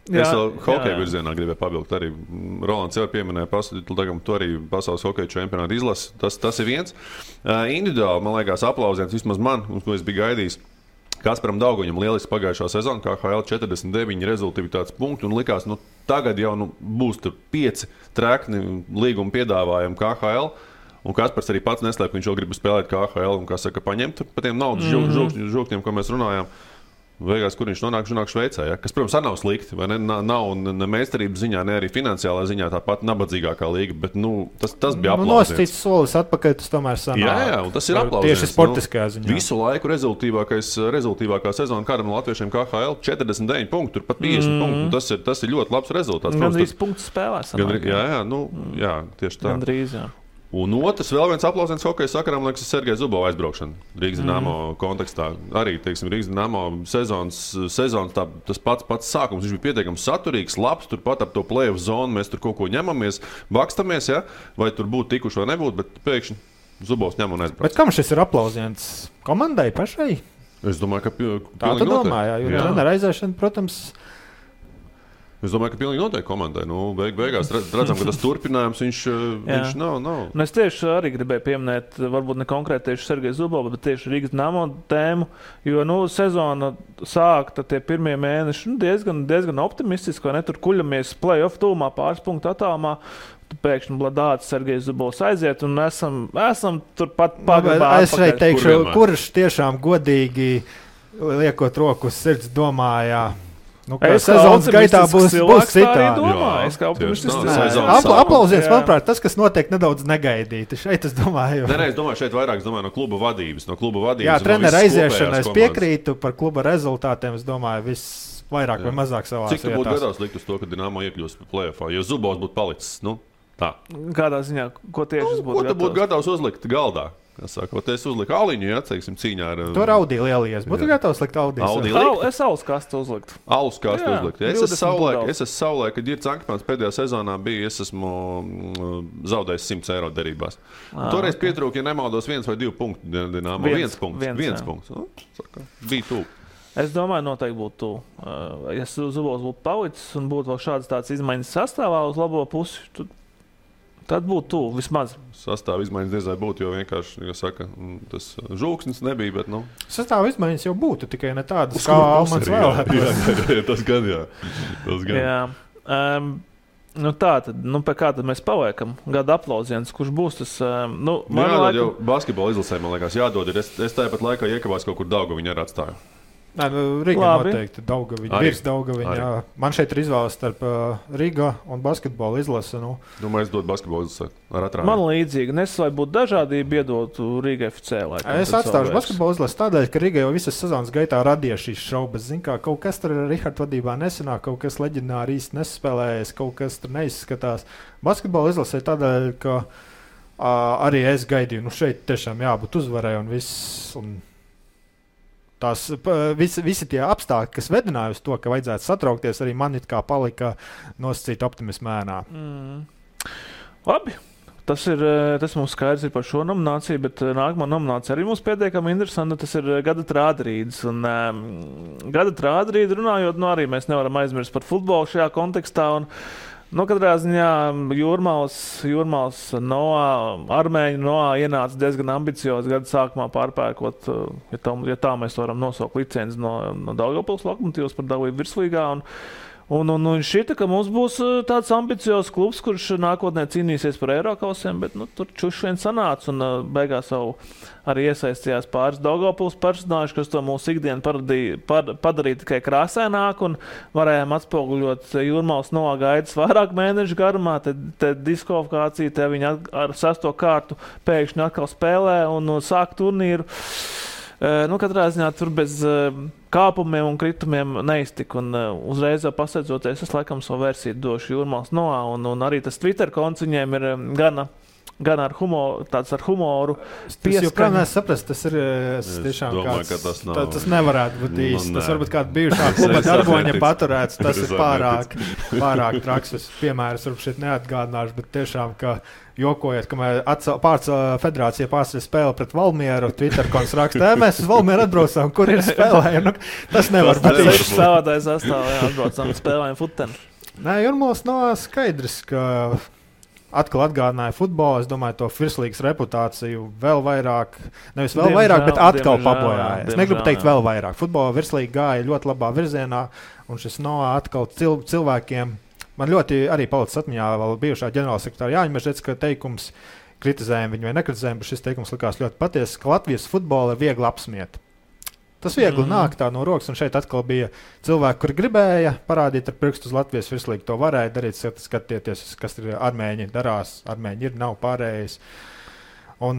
Es vēl hokeja virzienā gribēju pabilgt. Arī Rolands jau pieminēja, tu arī pasaules hokeja čempionāta izlasi. Tas ir viens. Individuāli, man liekas, aplausiens vismaz man, un ko es biju gaidījis. Kasparam Dauguņam lieliski pagājušā sezona, KHL 49 rezultātivitātes punkti, un likās, tagad jau būs tur 5 trekni līguma piedāvājumi KHL. Un Kaspars arī pats neslēp, ka viņš vēl grib spēlēt KHL un, kā saka, paņemt par tiem naudas žūkņiem, ko mēs runājām. Beigās, kur viņš nonāk Šveicē, ja? Kas, protams, nav slikti. Nav ne meistarības ziņā, ne arī finansiālā ziņā tāpat nabadzīgākā līga, bet tas bija aplausiens. Nosacīts solis atpakaļ, tas tomēr sanāk. Jā, un tas ir aplausiens. Tieši sportiskajā ziņā. Visu laiku rezultīvākā sezona kādam latviešiem KHL 49 punktu, tur pat 50 punktu. Tas ir ļoti labs rezultāts. Gandrīz punktu spēlē sanāk. Jā, tieši tā. Gandrīz, jā. Un otrs, vēl viens aplausiens hokeja sakarām, liekas, ir Sergeja Zubova aizbraukšana Rīgas Dinamo kontekstā. Arī, teiksim, Rīgas Dinamo sezonas tas pats sākums. Viņš bija pietiekami saturīgs, labs, turpat ap to play-off zonu mēs tur kaut ko ņemamies, bakstamies, ja? Vai tur būtu tikuši vai nebūtu, bet pēkšņi Zubovs ņem un aizbrauc. Bet kam šis ir aplausiens? Komandai pašai? Es domāju, ka tā tu domā, jo trenera aizēšana, protams... Es domāju, ka pilnīgi noteikti komandai. Beigās redzam, ka tas turpinājums viņš nav. Es tieši arī gribēju pieminēt, varbūt ne konkrēti tieši Sergeju Zubovu, bet tieši Rīgas Dinamo tēmu, jo sezona sākta tie pirmie mēneši diezgan optimistiski, vai ne? Tur kuļamies play-off tūmā, pāris punktu attālumā. Pēkšņi Bladāts, Sergejs Zubovs aiziet un esam turpat pagrabā. Es šeit teikšu, kurš tiešām godīgi liekot roku uz sirds domājā. Sezonas gaitā būs citādi. Aplausiens, manuprāt, tas, kas notiek nedaudz negaidīti. Šeit es domāju. Es domāju, šeit vairāk no kluba vadības. Jā, trenera aiziešana, es piekrītu par kluba rezultātiem. Es domāju, viss vairāk vai mazāk savās vietās. Cik tu būtu gatavs likt uz to, ka Dinamo iekļūst play-offā, jo Zubovs būtu palicis? Tā. Kādā ziņā, ko tieši es būtu gatavs? Ko tu būtu gatavs uzlikt galdā? Es uzliku Aliņu, cīņā ar... To raudīja lielies. Būtu gatavs likt Audiju. Es alus kastu uzliktu. Alus kastu uzliktu. Es esmu savulaik, kad Girts Ankepāns pēdējā sezonā bija, es esmu zaudējis 100 eiro derībās. Toreiz pietrūka, ja nemaldos, 1 vai 2 punktu Dinamo. 1 punkts. Bija tuvu. Es domāju, noteikti būtu tuvu. Ja Zubovs būtu palicis un būtu vēl šādas tāds izmaiņas sastāvā uz labo pusi, tad būtu tuvu vismaz. Sastāva izmaiņas diezai būtu, jo vienkārši, tas žūksnis nebija, bet, Sastāva izmaiņas jau būtu, tikai ne tādas, kā Almans vēlētās. Tas gan, jā. Tā tad, pie kā tad mēs paliekam? Gada aplausiens, kurš būs tas, jādod jau basketbola izlasē, man liekas, jādod. Es tāpat laikā iekavās kaut kur Daugaviņu ar atstāju. Riga noteikti Daugaviņa, virs Daugaviņa. Man šeit ir izvēles starp Riga un basketbola izlase. Domāju, es dodu basketbola izlasē ar atrādi. Man līdzīgi, lai būtu dažādība, iedotu Riga FC. Es atstāšu basketbola izlasi tādēļ, ka Riga jau visas sezonas gaitā radīja šīs šaubas. Kaut kas tur Riharda vadībā nesanāk, kaut kas leģendāri īsti nespēlējas, kaut kas tur neizskatās. Basketbola izlasē tādēļ, ka arī es gaidīju, šeit tiešām jābūt uzvarai un viss. Tās visi tie apstākļi, kas vedināja uz to, ka vajadzētu satraukties, arī man it kā palika nosacīta optimisma ēnā. Labi. Tas mums skaidrs ir par šo nomināciju, bet nākamā nominācija arī mums pietiekami interesanta. Tas ir gada trādrīdes. Un gada trādrīdi runājot, arī mēs nevaram aizmirst par futbolu šajā kontekstā. Katrā ziņā Jūrmāls Armēņu Noā ienāca diezgan ambiciozi gada sākumā pārpērkot, ja tā mēs varam nosaukt licenci no Daugavpils Lokomotīvas par dalību virslīgā. Un šķita, ka mums būs tāds ambiciozs klubs, kurš nākotnē cīnīsies par Eirokausiem, bet tur čuši vien sanāca un beigās jau arī iesaistījās pāris Daugavpils personāži, kas to mūsu ikdienu padarīja tikai krāsaināk un varējām atspoguļot Jūrmāls Noā gaidas vairāk mēnešu garumā, te diskvalifikācija, te viņi ar 6. kārtu pēkšņi atkal spēlē un sāk turnīru. Katrā ziņā tur bez kāpumiem un kritumiem neiztika. Un uzreiz jau pasteidzoties, es laikam savu versiju došu Jūrmāls Noā. Un arī tas Twitter konts viņiem ir gana gan ar humoru. Tas joprojām nesaprast, tas ir tiešām domāju, kāds, tas nevarētu būt īsti. Tas varbūt kāda bijušā kluba darboņa paturēts, tas ir pārāk traksus. Piemērs varbūt šeit neatgādināšu, bet tiešām, ka jokojot, kamēr federācija pārstāja spēli pret Valmieru, Twitterkonts raksta, mēs uz Valmieru atbraucām, kur ir spēlēja. Tas nevar būt īsti. Spēlētājs sastāvā atbraucām, spēlējam futeni. Nē, Jurmos nav skaidrs, ka atkal atgādināja futbolu. Es domāju, to virslīgas reputāciju vēl vairāk, nevis vēl vairāk, bet atkal pabojāja. Es negribu teikt vēl vairāk. Futbola virslīga gāja ļoti labā virzienā, un šis no atkal cilvēkiem. Man ļoti arī palicis atmiņā vēl bijušā ģenerālsekretāra Jāņa Mežģecka teikums, kritizējam viņu vai nekritizējam, bet šis teikums likās ļoti patiesi, ka Latvijas futbola ir viegli apsmiet. Tas viegli nāk tā no rokas, un šeit atkal bija cilvēki, kuri gribēja parādīt ar pirkstu uz Latvijas virslīgu. To varēja darīt, skatieties, kas ir armēņi darās. Armēņi ir, nav pārējais. Un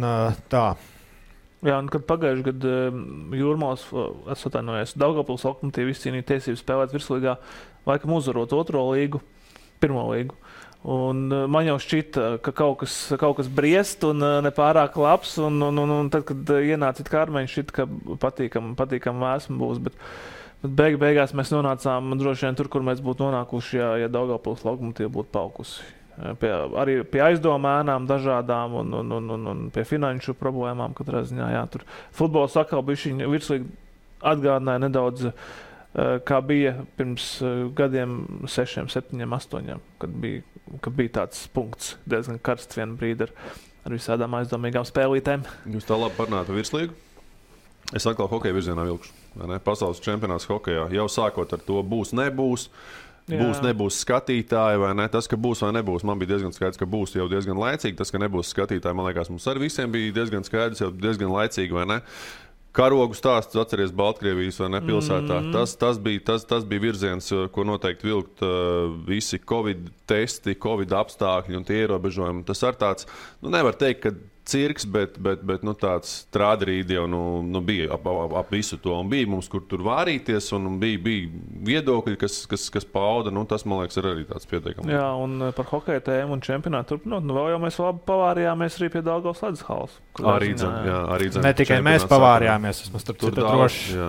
tā. Jā, un kad pagājuši gadu Jūrmals, es atvainojos, Daugavpils Lokomotīvi izcīnīja tiesības spēlēt virslīgā, laikam uzvarot pirmo līgu. Un man jau šķita, ka kaut kas briest un nepārāk labs, un tad, kad ienāca kā armēņi, šķita, ka patīkam vēsma būs, bet beigās mēs nonācām droši vien tur, kur mēs būtu nonākuši, ja Daugavpils Lokomotīva būtu paukusi. Arī pie aizdomēnām dažādām un pie finanšu problēmām katrā ziņā, jā, tur futbols atkal bija virslīgi atgādināja nedaudz, kā bija pirms gadiem 6, 7, 8, kad bija tāds punkts diezgan karsts vienu brīdi ar visādām aizdomīgām spēlītēm. Jūs tā labi parunājat par virslīgu? Es atkal hokeja virzienā vilkšu. Pasaules čempionāts hokejā jau sākot ar to būs, nebūs. Nebūs skatītāji vai ne? Tas, ka būs vai nebūs, man bija diezgan skaidrs, ka būs jau diezgan laicīgi. Tas, ka nebūs skatītāji, man liekas, mums ar visiem bija diezgan skaidrs, jau diezgan laicīgi, vai ne? Karogu stāsts, atceries Baltkrievijas vai ne pilsētā. Tas bija virziens, ko noteikti vilkt visi Covid testi, Covid apstākļi un tie ierobežojumi. Tas ar tāds, nevar teikt, ka cirks, bet tāds trādrīdi jau bija ap visu to. Un bija mums, kur tur vārīties, un bija viedokļi, kas pauda. Tas, man liekas, ir arī tāds pietiekams. Jā, un par hokeja tēmu un čempionātu turpinot, vēl jau mēs labi pavārījāmies arī pie Daugavas ledus halas. Arī dzem. Ne tikai mēs pavārījāmies, es mums tur droši.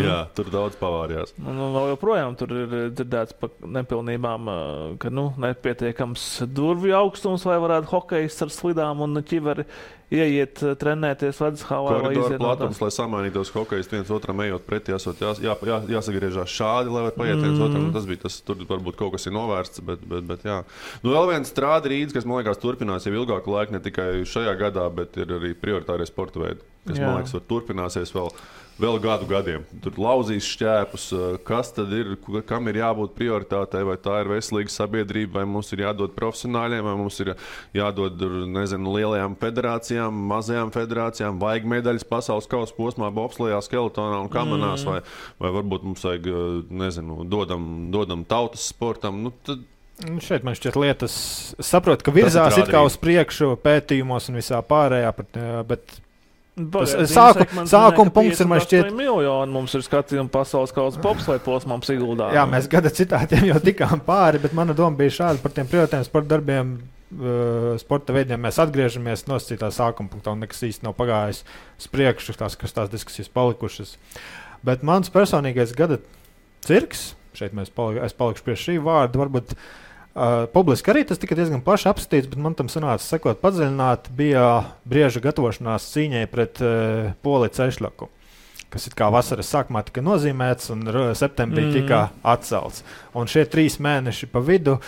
Jā, tur daudz pavārījās. Vēl joprojām tur ir dzirdēts par nepilnībām, ka nepietiekams durvju augstums, lai varētu hokejs ar slidām un ķiveri ieiet, trenēties ledus halā. Koridoru platums, lai samainītos hokejs viens otram ejot pretī, jāsagriežās šādi, lai var paiet viens otram. Tas tur varbūt kaut kas ir novērsts, bet jā. Vēl viens trādrīds, kas, man liekas, turpinās jau ilgāku laiku, ne tikai šajā gadā, bet ir arī prioritārie sporta veidi, kas, man liekas, turpināsies vēl gadiem. Tur lauzīs šķēpus, kas tad ir, kam ir jābūt prioritātei, vai tā ir veselīga sabiedrība, vai mums ir jādod profesionāļiem, vai mums ir jādod, lielajām federācijām, mazajām federācijām, vajag medaļas pasaules kausa posmā, bobslejā, skeletonā un kamanās, vai varbūt mums vajag, dodam tautas sportam. Šeit man šķiet lietas, saprotu, ka virzās it kā uz priekšu pētījumos un visā pārējā, bet sākuma punkts ir, man šķiet, miljoni mums ir skatījumi pasaules kausa bobsleja posmām Siguldā. Jā, mēs gada citātiem jau tikām pāri, bet mana doma bija šāda par tiem prioritāriem sporta darbiem, sporta veidiem. Mēs atgriežamies nosacītā sākuma punktā un nekas īsti nav pagājis uz priekšu, tās diskusijas palikušas. Bet mans personīgais gada cirks, šeit es palikšu pie šī vārda, varbūt publiski arī tas tika diezgan plaši apskatīts, bet man tam sanāca sakot padziļināt, bija brieža gatavošanās cīņai pret Poliju Cešļaku, kas it kā vasaras sākumā tika nozīmēts un septembrī tika atcelts. Un šie 3 mēneši pa vidu,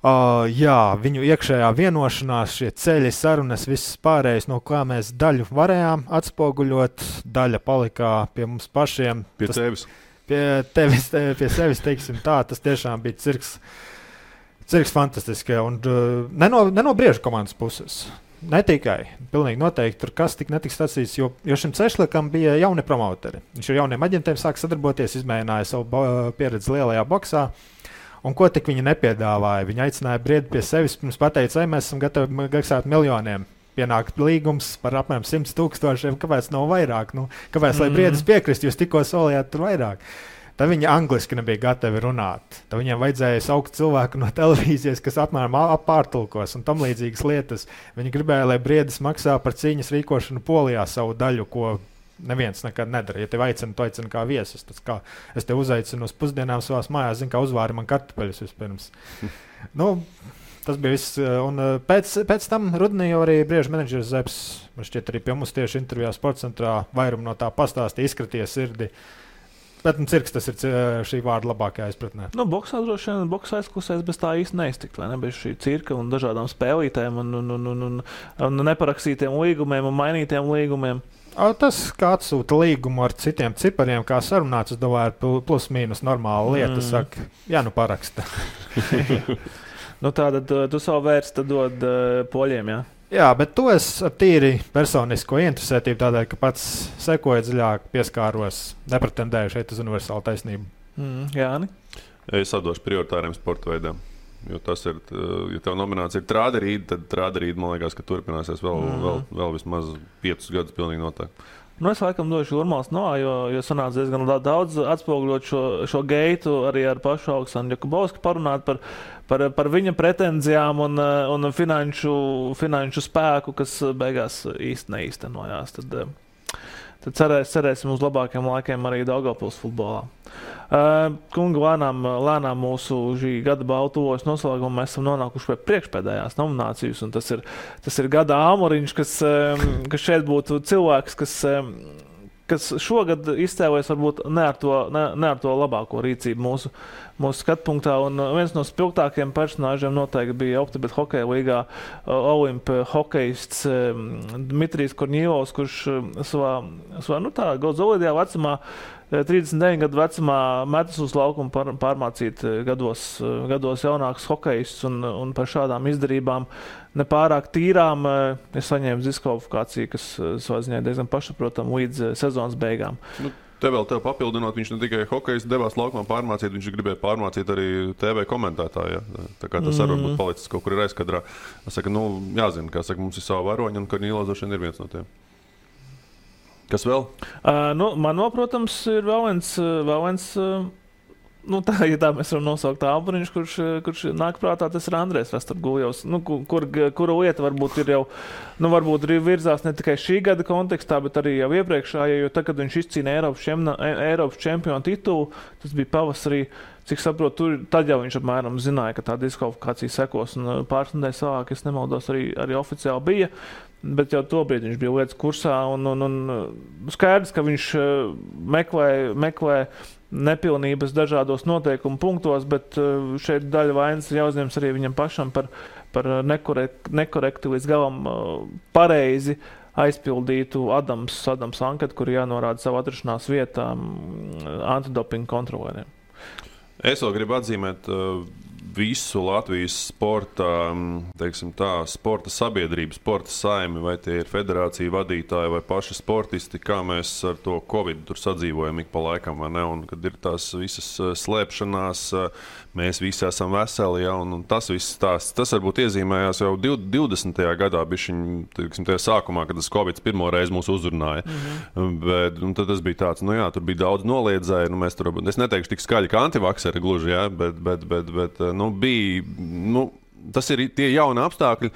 viņu iekšējā vienošanās, šie ceļi, sarunas, viss pārējais, no kā mēs daļu varējām atspoguļot, daļa palikā pie mums pašiem. Pie sevis, teiksim tā, tas tiešām bija cirks fantastiski, un ne no briežu komandas puses. Ne tikai, pilnīgi noteikti tur kas netiks sacīts, jo šim Cešļakam bija jauni promoteri. Viņš ar jauniem aģentiem sāk sadarboties, izmēģināja savu pieredzi lielajā boksā, un ko tik viņi nepiedāvāja. Viņi aicināja Briedi pie sevis, pirms pateica, mēs esam gatavi maksāt miljoniem. Pienākt līgums par apmēram 100 000, kāpēc nav vairāk? Kāpēc, lai Briedis piekrist, jūs tikko solījāt tur vairāk? Tad viņi angliski nebija gatavi runāt. Tad viņiem vajadzēja saukt cilvēku no televīzijas, kas apmēram pārtulkos un tam līdzīgas lietas. Viņi gribēja, lai Briedis maksā par cīņas rīkošanu Polijā savu daļu, ko neviens nekad nedara. Ja tev aicina, tu aicini kā viesus. Tas kā es te uzaicinu uz pusdienām savās mājās, zinu, kā uzvāri man kartupeļus vispirms. Tas bija viss. Un pēc tam rudenī jau arī briežu menedžers Zepes, man šķiet arī pie mums tieši intervijā Sportcentrā vairumu no tā pastāstīja, izkraties sirdi. Bet cirks tas ir šī vārda labākajā izpratnē. Boksā droši vien, boksā aizklusēs bez tā īsti neiztikt, vai ne? Bez šī cirka un dažādām spēlītēm un neparakstītiem līgumiem un mainītiem līgumiem. Tas, kā atsūta līgumu ar citiem cipariem, kā sarunāts, es domāju, ir plus mīnus normāla lieta. Saka, jā, nu paraksta. Tātad tu savu vērstu dod poļiem, jā? Jā, bet to es ar tīri personisko interesētību tādēļ, ka pats sekoju dziļāk, pieskāros, nepretendēju šeit uz universālu taisnību. Jāni? Es atdošu prioritāriem sporta veidiem. Jo tas ir, ja tev nominācija ir trāderīda, tad trāderīda, man liekas, ka turpināsies vēl vismaz 5 gadus pilnīgi noteikti. Es laikam došu Urmāls no, jo sanāca diezgan daudz atspoguļot šo geitu arī ar pašu Aleksandru Jakubovski parunāt par viņa pretenzijām un finanšu spēku, kas beigās īsti neīstenojās. Tad cerēsim uz labākiem laikiem arī Daugavpils futbolā. Kungi, lēnām mūsu šī gada baltuvojas noslēgumā mēs esam nonākuši pie priekšpēdējās nominācijas, un tas ir gada āmuriņš, kas šeit būtu cilvēks, kas šogad izcēlēs varbūt ne ar to labāko rīcību mūsu skatpunktā, un viens no spilgtākajiem personāžiem noteikti bija Optibet hokeja līgā Olimpa hokejists Dmitrijs Korņīlovs, kurš savā Goldzolīdajā vecumā 39 gadu vecumā metas uz laukumu pārmācīt gados jaunākus hokejists un par šādām izdarībām nepārāk tīrām ir saņēmis diskvalifikāciju, kas savā ziņā diezgan pašsaprotam līdz sezonas beigām. Te vēl tev papildinot, viņš ne tikai hokejs devās laukumā pārmācīt, viņš gribēja pārmācīt arī TV komentētāju. Ja? Tā kā tas arī būtu palicis kaut kur ir aizkadrā. Es saku, jāzina, kā saka, mums ir savu varoņu, un Korņīlovs droši vien ir viens no tiem. Kas vēl? Man vēl, protams, ir vēl viens ja tā mēs varam nosaukt āburiņš, kurš nāk prātā, tas ir Andrejs Rastorguljovs, kura lieta varbūt ir jau, varbūt virzās ne tikai šī gada kontekstā, bet arī jau iepriekšējā, jo tad, kad viņš izcīna Eiropas čempionu titulu, tas bija pavasarī, cik saprotu, tad jau viņš apmēram zināja, ka tā diskvalifikācija sekos, un pāris nedēļas vēlāk, es nemaldos, arī oficiāli bija, bet jau tobrīd viņš bija lietas kursā, un skaidrs, ka viņš meklē nepilnības dažādos noteikumu punktos, bet šeit daļa vainas jāuzņems arī viņam pašam par nekorekti līdz galam pareizi aizpildītu Adams anketu, kur jānorāda savu atrašanās vietā antidopinga kontrolieriem. Es vēl gribu atzīmēt visu Latvijas sporta sabiedrību, sporta saimi, vai tie ir federācija vadītāji vai paši sportisti, kā mēs ar to Covid tur sadzīvojam ik pa laikam, vai ne? Un kad ir tās visas slēpšanās, mēs visi esam veseli, ja? Un tas viss tas varbūt iezīmējās jau 20. gadā, bišķiņ, tajā sākumā, kad tas Covid pirmo reizi mūs uzrunāja. Bet tad tas bija tāds, tur bija daudz noliedzēju, mēs tur, es neteikšu tik skaļi kā antivakseri gluži, ja? Bet tas ir tie jauni apstākļi,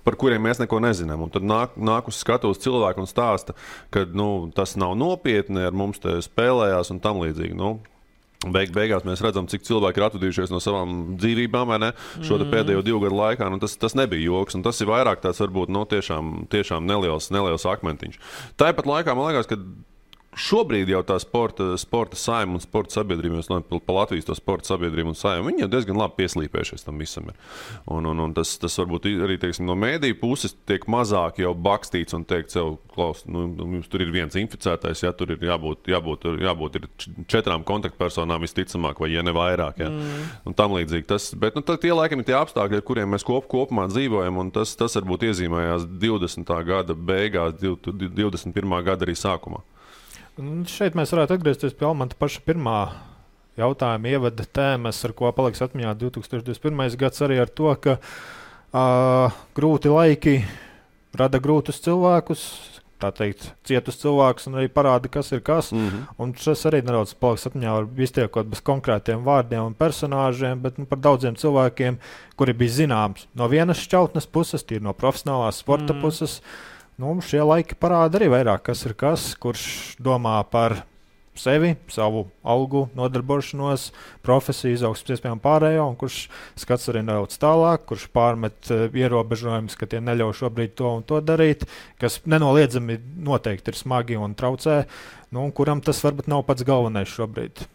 par kuriem mēs neko nezinām. Un tad nāk uz skatuves cilvēku un stāsta, ka tas nav nopietni, ar mums te spēlējās un tam līdzīgi. Beigās mēs redzam, cik cilvēki ir atvadījušies no savām dzīvībām, vai ne? Šo pēdējo 2 gadu laikā. Tas nebija joks, un tas ir vairāk tāds varbūt tiešām neliels akmentiņš. Tāpat laikā man liekas, ka šobrīd jau tā sporta saima un sporta sabiedrība, pa Latvijas to sporta sabiedrību un saima, viņi jau diezgan labi pieslīpējušies tam visam ir. Un tas varbūt arī, no mēdīju puses tiek mazāk jau bakstīts un teikt sev, klaus, jums tur ir viens inficētais, ja tur ir jābūt ir 4 kontaktpersonām visticamāk, vai ja ne vairāk, ja. Un tam līdzīgi. Bet tie laikam ir tie apstākļi, ar kuriem mēs kopumā dzīvojam, un tas varbūt iezīmējās 20. gada beigās, 21. gada arī sākumā. Šeit mēs varētu atgriezties pie Almanta paša pirmā jautājuma ievada tēmas, ar ko paliks atmiņā 2021. gads arī ar to, ka grūti laiki rada grūtus cilvēkus, tā teikt, cietus cilvēks un arī parāda, kas ir kas. Un šis arī nedaudz paliks atmiņā, var iztiekot bez konkrētiem vārdiem un personāžiem, bet par daudziem cilvēkiem, kuri bija zināms no vienas šķautnes puses, tīri no profesionālās sporta puses. Šie laiki parāda arī vairāk, kas ir kas, kurš domā par sevi, savu algu, nodarbošanos, profesiju, izaugsmes iespējām pārējo, un kurš skats arī nedaudz tālāk, kurš pārmet ierobežojumus, ka tie neļauj šobrīd to un to darīt, kas nenoliedzami noteikti ir smagi un traucē, un kuram tas varbūt nav pats galvenais šobrīd.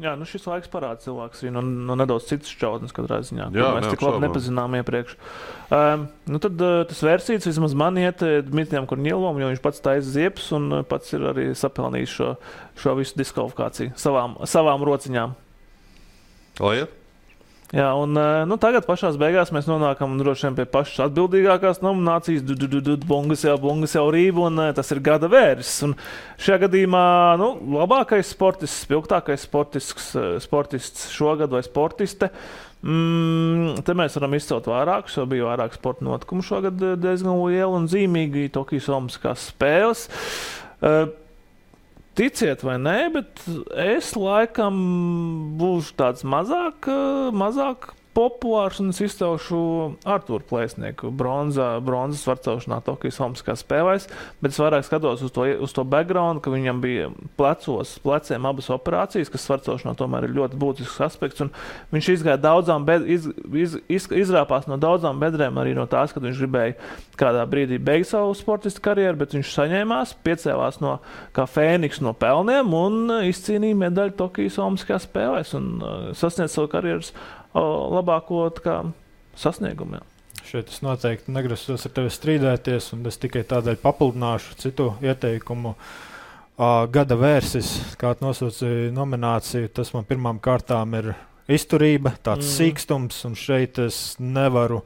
Jā, šis laiks parāda cilvēks arī no nedaudz citas šķautnes katrā ziņā, ko mēs tik labi nepazinām iepriekš. Tad tas versijas vismaz man iet Dmitrijam Korņielovam, jo viņš pats taisa ziepes un pats ir arī sapelnījis šo visu diskvalifikāciju savām rociņām. Lai iet? Jā, un tagad pašās beigās mēs nonākam droši vien pie pašas atbildīgākās nominācijas Bungas jau rība, un tas ir gada vērsis. Un šajā gadījumā labākais sportists, spilgtākais sportists šogad vai sportiste. Te mēs varam izcelt vairākus, jo bija vairāk sporta notikumu šogad diezgan liela un zīmīgi Tokijas Olimpiskās spēles. Ticiet vai nē, bet es laikam būšu tāds mazāk populārs un es izcelšu Artūru Plēsnieku bronzas varcelšanā Tokijas Olimpiskās spēlēs, bet es vairāk skatos uz to background, ka viņam bija pleciem abas operācijas, kas varcelšanā tomēr ir ļoti būtisks aspekts, un viņš izrāpās no daudzām bedrēm arī no tās, kad viņš gribēja kādā brīdī beigt savu sportistu karjeru, bet viņš saņēmās, piecēlās kā fēniks no pelniem un izcīnīja medaļu Tokijas Olimpiskās spēlēs un sasniedz savu karjeras labāko sasniegumu. Šeit es noteikti negrasos ar tevi strīdēties, un es tikai tādēļ papildināšu citu ieteikumu. Gada vērsis, kā nosaucīja nomināciju, tas man pirmām kārtām ir izturība, tāds sīkstums, un šeit es nevaru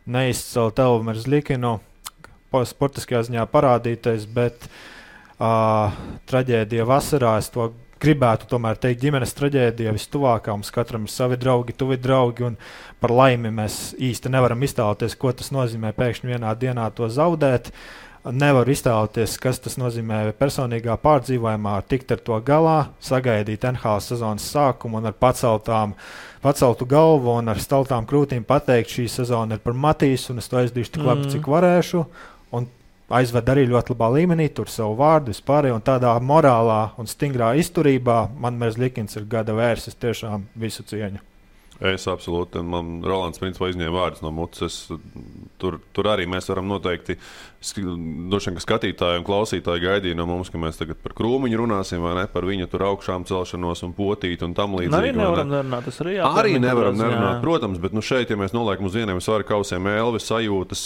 neizcelt Elvmeru Zļikinu, sportiskajā ziņā parādītais, bet traģēdija vasarā, es to gribētu tomēr teikt, ģimenes traģēdija vistuvākā, mums katram ir savi draugi, tuvi draugi, un par laimi mēs īsti nevaram iztēloties, ko tas nozīmē pēkšņi vienā dienā to zaudēt. Nevaru iztēloties, kas tas nozīmē personīgā pārdzīvojumā, tikt ar to galā, sagaidīt NHL sezonas sākumu un ar paceltu galvu un ar staltām krūtīm pateikt, šī sezona ir par Matīsu, un es to aizdīšu tik labi, cik varēšu. Un aizved arī ļoti labā līmenī, tur savu vārdu vispār, un tādā morālā un stingrā izturībā man Zļikins ir gada vērsis, tiešām visu cieņu. Es absolūti, un man Rolands principā izņēma vārdus no mutes. Tur arī mēs varam noteikti, droši vien, ka skatītāji un klausītāji gaidīja no mums, ka mēs tagad par Krūmiņu runāsim, vai ne, par viņa tur augšām celšanos un potīt un tam līdzīgi. Arī nevaram nerunāt, tas arī jāpārmīt. Arī nevaram nerunāt, protams, bet šeit, ja mēs noliekam uz vieniem svaru kausiem Elvis sajūtas,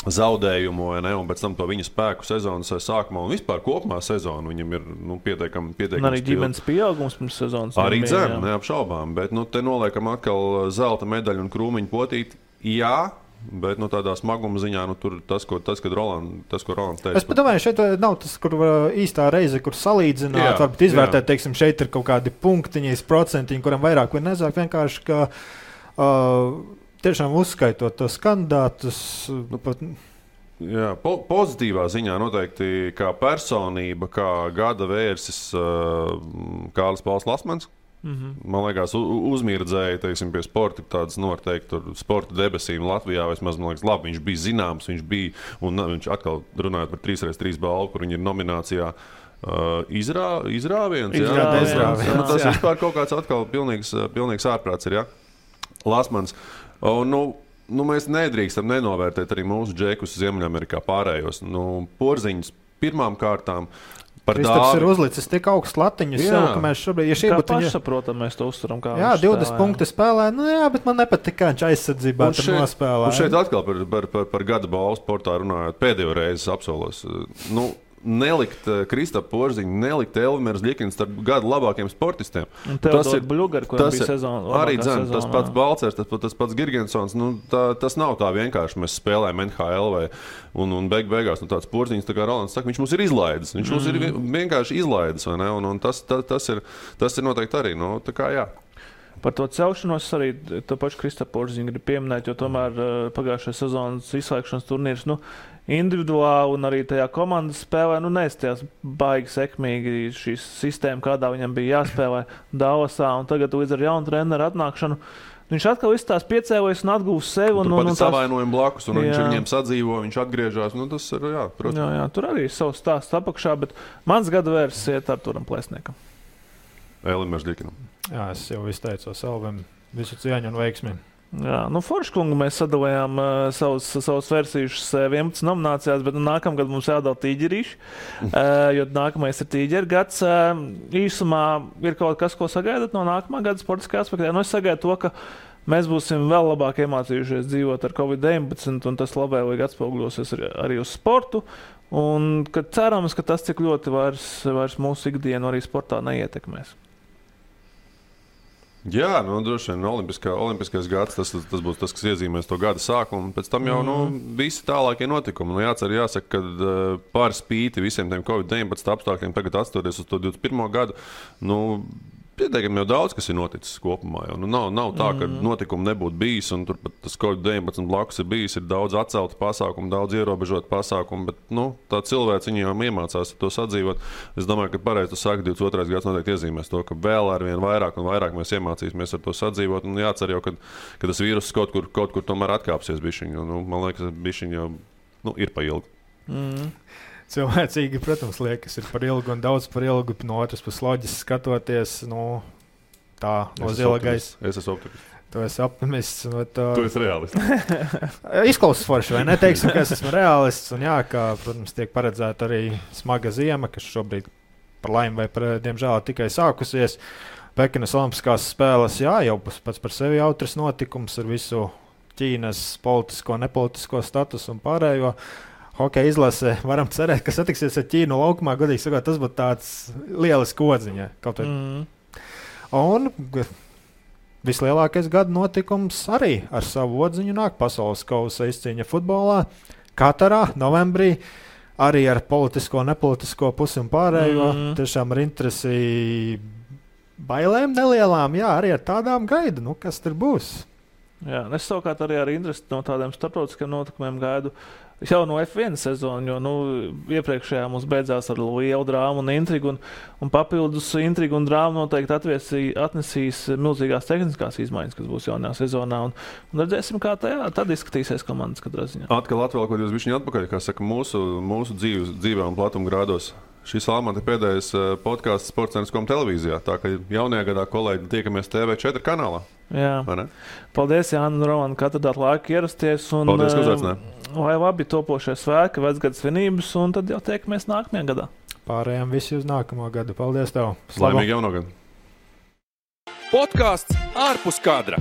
zaudējumu, ne, un pēc tam to viņa spēku sezonas sākumā un vispār kopumā sezonu viņam ir pietiekami arī ģimenes pieaugums pirms sezonas. Arī dzem, neapšaubām, bet te noliekam atkal zelta medaļu un Krūmiņu potīt. Jā, bet tādā smaguma ziņā tur tas, ko Rolands teica. Es domāju, šeit nav tas, kur īstā reize, kur salīdzināt, varbūt izvērtēt, teiksim, šeit ir kaut kādi punktiņi, procentiņi, kuram vairāk vai nezāk, vienkārši, ka tiešām uzskaitot tos kandidātus. Jā, pozitīvā ziņā noteikti kā personība, kā gada vērsis Kārlis Pauls Lasmans. Man liekas, uzmirdzēja, teiksim, pie sporta tādas noteikti sporta debesīm Latvijā. Vismaz, man liekas, labi, viņš bija zināms, viņš atkal runājot par 3x3 balvu, kur viņi ir nominācijā. Izrāviens. Tas vispār kaut kāds atkal pilnīgs ārprāts ir, jā? Lasmans. Mēs nedrīkstam nenovērtēt arī mūsu džekus Ziemeļamerikā pārējos. Porziņus pirmām kārtām par Dāvi. Kristaps ir uzlicis tik augstu latiņus sev, ka mēs šobrīd... Kā pašsaprotam, mēs to uzturam, kā jā, 20 punkti spēlē. Bet man nepatīk, kā viņš aizsardzībā tur nospēlē. Un šeit atkal par gada balvu sportā runājot, pēdējo reizi apsolos. Nelikt Kristapu Porziņu, nelikt Elvmeru Zļikinu starp gadu labākiem sportistiem. Tas ir Bļugari, kuram bija sezona. Arī tas pats Balcers, tas pats Girgensons. Tas nav tā vienkārši. Mēs spēlējam NHL un beigās tāds Porziņš, tā kā Rolands saka, viņš mums ir izlaidis. Viņš mums ir vienkārši izlaidis, vai ne? Un tas ir noteikti arī. Tā kā jā. Par to celšanos arī to pašu Kristapu Porziņu grib pieminēt, jo tomēr pagājušajā sezonas izslēgšanas turnīrs, individuāli un arī tajā komandas spēlē, neizstījās baigi sekmīgi šīs sistēma, kādā viņam bija jāspēlē Dallasā, un tagad līdz ar jaunu treneru atnākšanu viņš atkal izstās piecēlojas un atgūs sevi. Un turpat savainojumu blakus, un viņš viņiem sadzīvo, viņš atgriežās. Tas ir, protams. Jā, tur arī ir savs stāsts apakšā, bet mans gada vērs iet Arturam Plēsniekam. Elim Mežģikinam. Jā, es jau izteicos Elvim visu cieņu un veiksmi. Jā, Forškungu mēs sadalījām savus versijušus 11 nominācijās, bet nākamgad mums jādala tīģerīši, jo nākamais ir tīģeri gads. Īsumā ir kaut kas, ko sagaidat no nākamā gada sportiskā aspektā. Es sagaidu to, ka mēs būsim vēl labāk iemācījušies dzīvot ar Covid-19, un tas labvēlīgi atspoguļosies arī uz sportu. Un cerams, ka tas cik ļoti vairs mūsu ikdienu arī sportā neietekmēs. Jā, droši vien olimpiskais gads, tas būs tas, kas iezīmēs to gada sākumu, un pēc tam jau visi tālākie notikumi. Jāsaka, ka par spīti visiem tiem Covid-19 apstākļiem tagad atstoties uz to 21. gadu, pietiekami jau daudz, kas ir noticis kopumā. Nav tā, ka notikumi nebūtu bijis, un turpat tas Covid-19 blakus ir bijis, ir daudz atceltu pasākumu, daudz ierobežotu pasākumu, bet tā cilvēks viņi jau iemācās to sadzīvot. Es domāju, ka pareizi tu saki, 22. gads noteikti iezīmēs to, ka vēl arvien vairāk un vairāk mēs iemācīsimies ar to sadzīvot, un jācer jau, ka tas vīruss kaut kur tomēr atkāpsies bišķiņu. Man liekas, bišķiņu jau ir pa ilgu. Cilvēcīgi, protams, liekas, ir par ilgu un daudz par ilgu. No otras puses loģiski skatoties, tā no zila gaisa. Es esmu optimists. Tu esi optimists. Tu esi realists. Izklausās forši, vai ne? Teiksim, ka es esmu realists. Un kā, protams, tiek paredzēta arī smaga ziema, kas šobrīd par laimi vai diemžēl tikai sākusies. Pekinas Olimpiskās spēles, jau pats par sevi jautrs notikums ar visu Ķīnas politisko, nepolitisko statusu un pārējo. Hokeja izlase, varam cerēt, ka satiksies ar Ķīnu laukumā. Godīgi sakot, tas būtu tāds lielisks kodziņa. Un vislielākais gada notikums arī ar savu odziņu nāk pasaules kausa izcīņa futbolā. Katarā, novembrī, arī ar politisko, nepolitisko pusi un pārējo. Tiešām ar interesi bailēm nelielām, arī ar tādām gaidu, kas tur būs. Jā, es savukārt arī ar interesi no tādiem starptautiskiem notikumiem gaidu jau no F1 sezonu, jo iepriekšējā mums beidzās ar lielu drāmu un intrigu, un papildus intrigu un drāmu noteikti atnesīs milzīgās tehniskās izmaiņas, kas būs jaunajā sezonā, un redzēsim, kā tad izskatīsies komandas katrā ziņā. Atkal atvēlkot jūs bišķiņu atpakaļ, kā saka, mūsu dzīvē un platuma grādos. Šis Almanta pēdējais podcasts Sports.com televīzijā, tā ka jaunajā gadā kolēģi tiekamies TV4 kanālā. Jā. Paldies, Jāni un Roman, ka atradāt laiku ierasties. Paldies, ka uzaicinājāt. Lai labi topošie svētki, vecgada svinības, un tad jau tiekamies nākamajā gadā. Pārējām visi uz nākamo gadu. Paldies tev. Laimīgi jauno gadu. Podcasts ārpus kadra.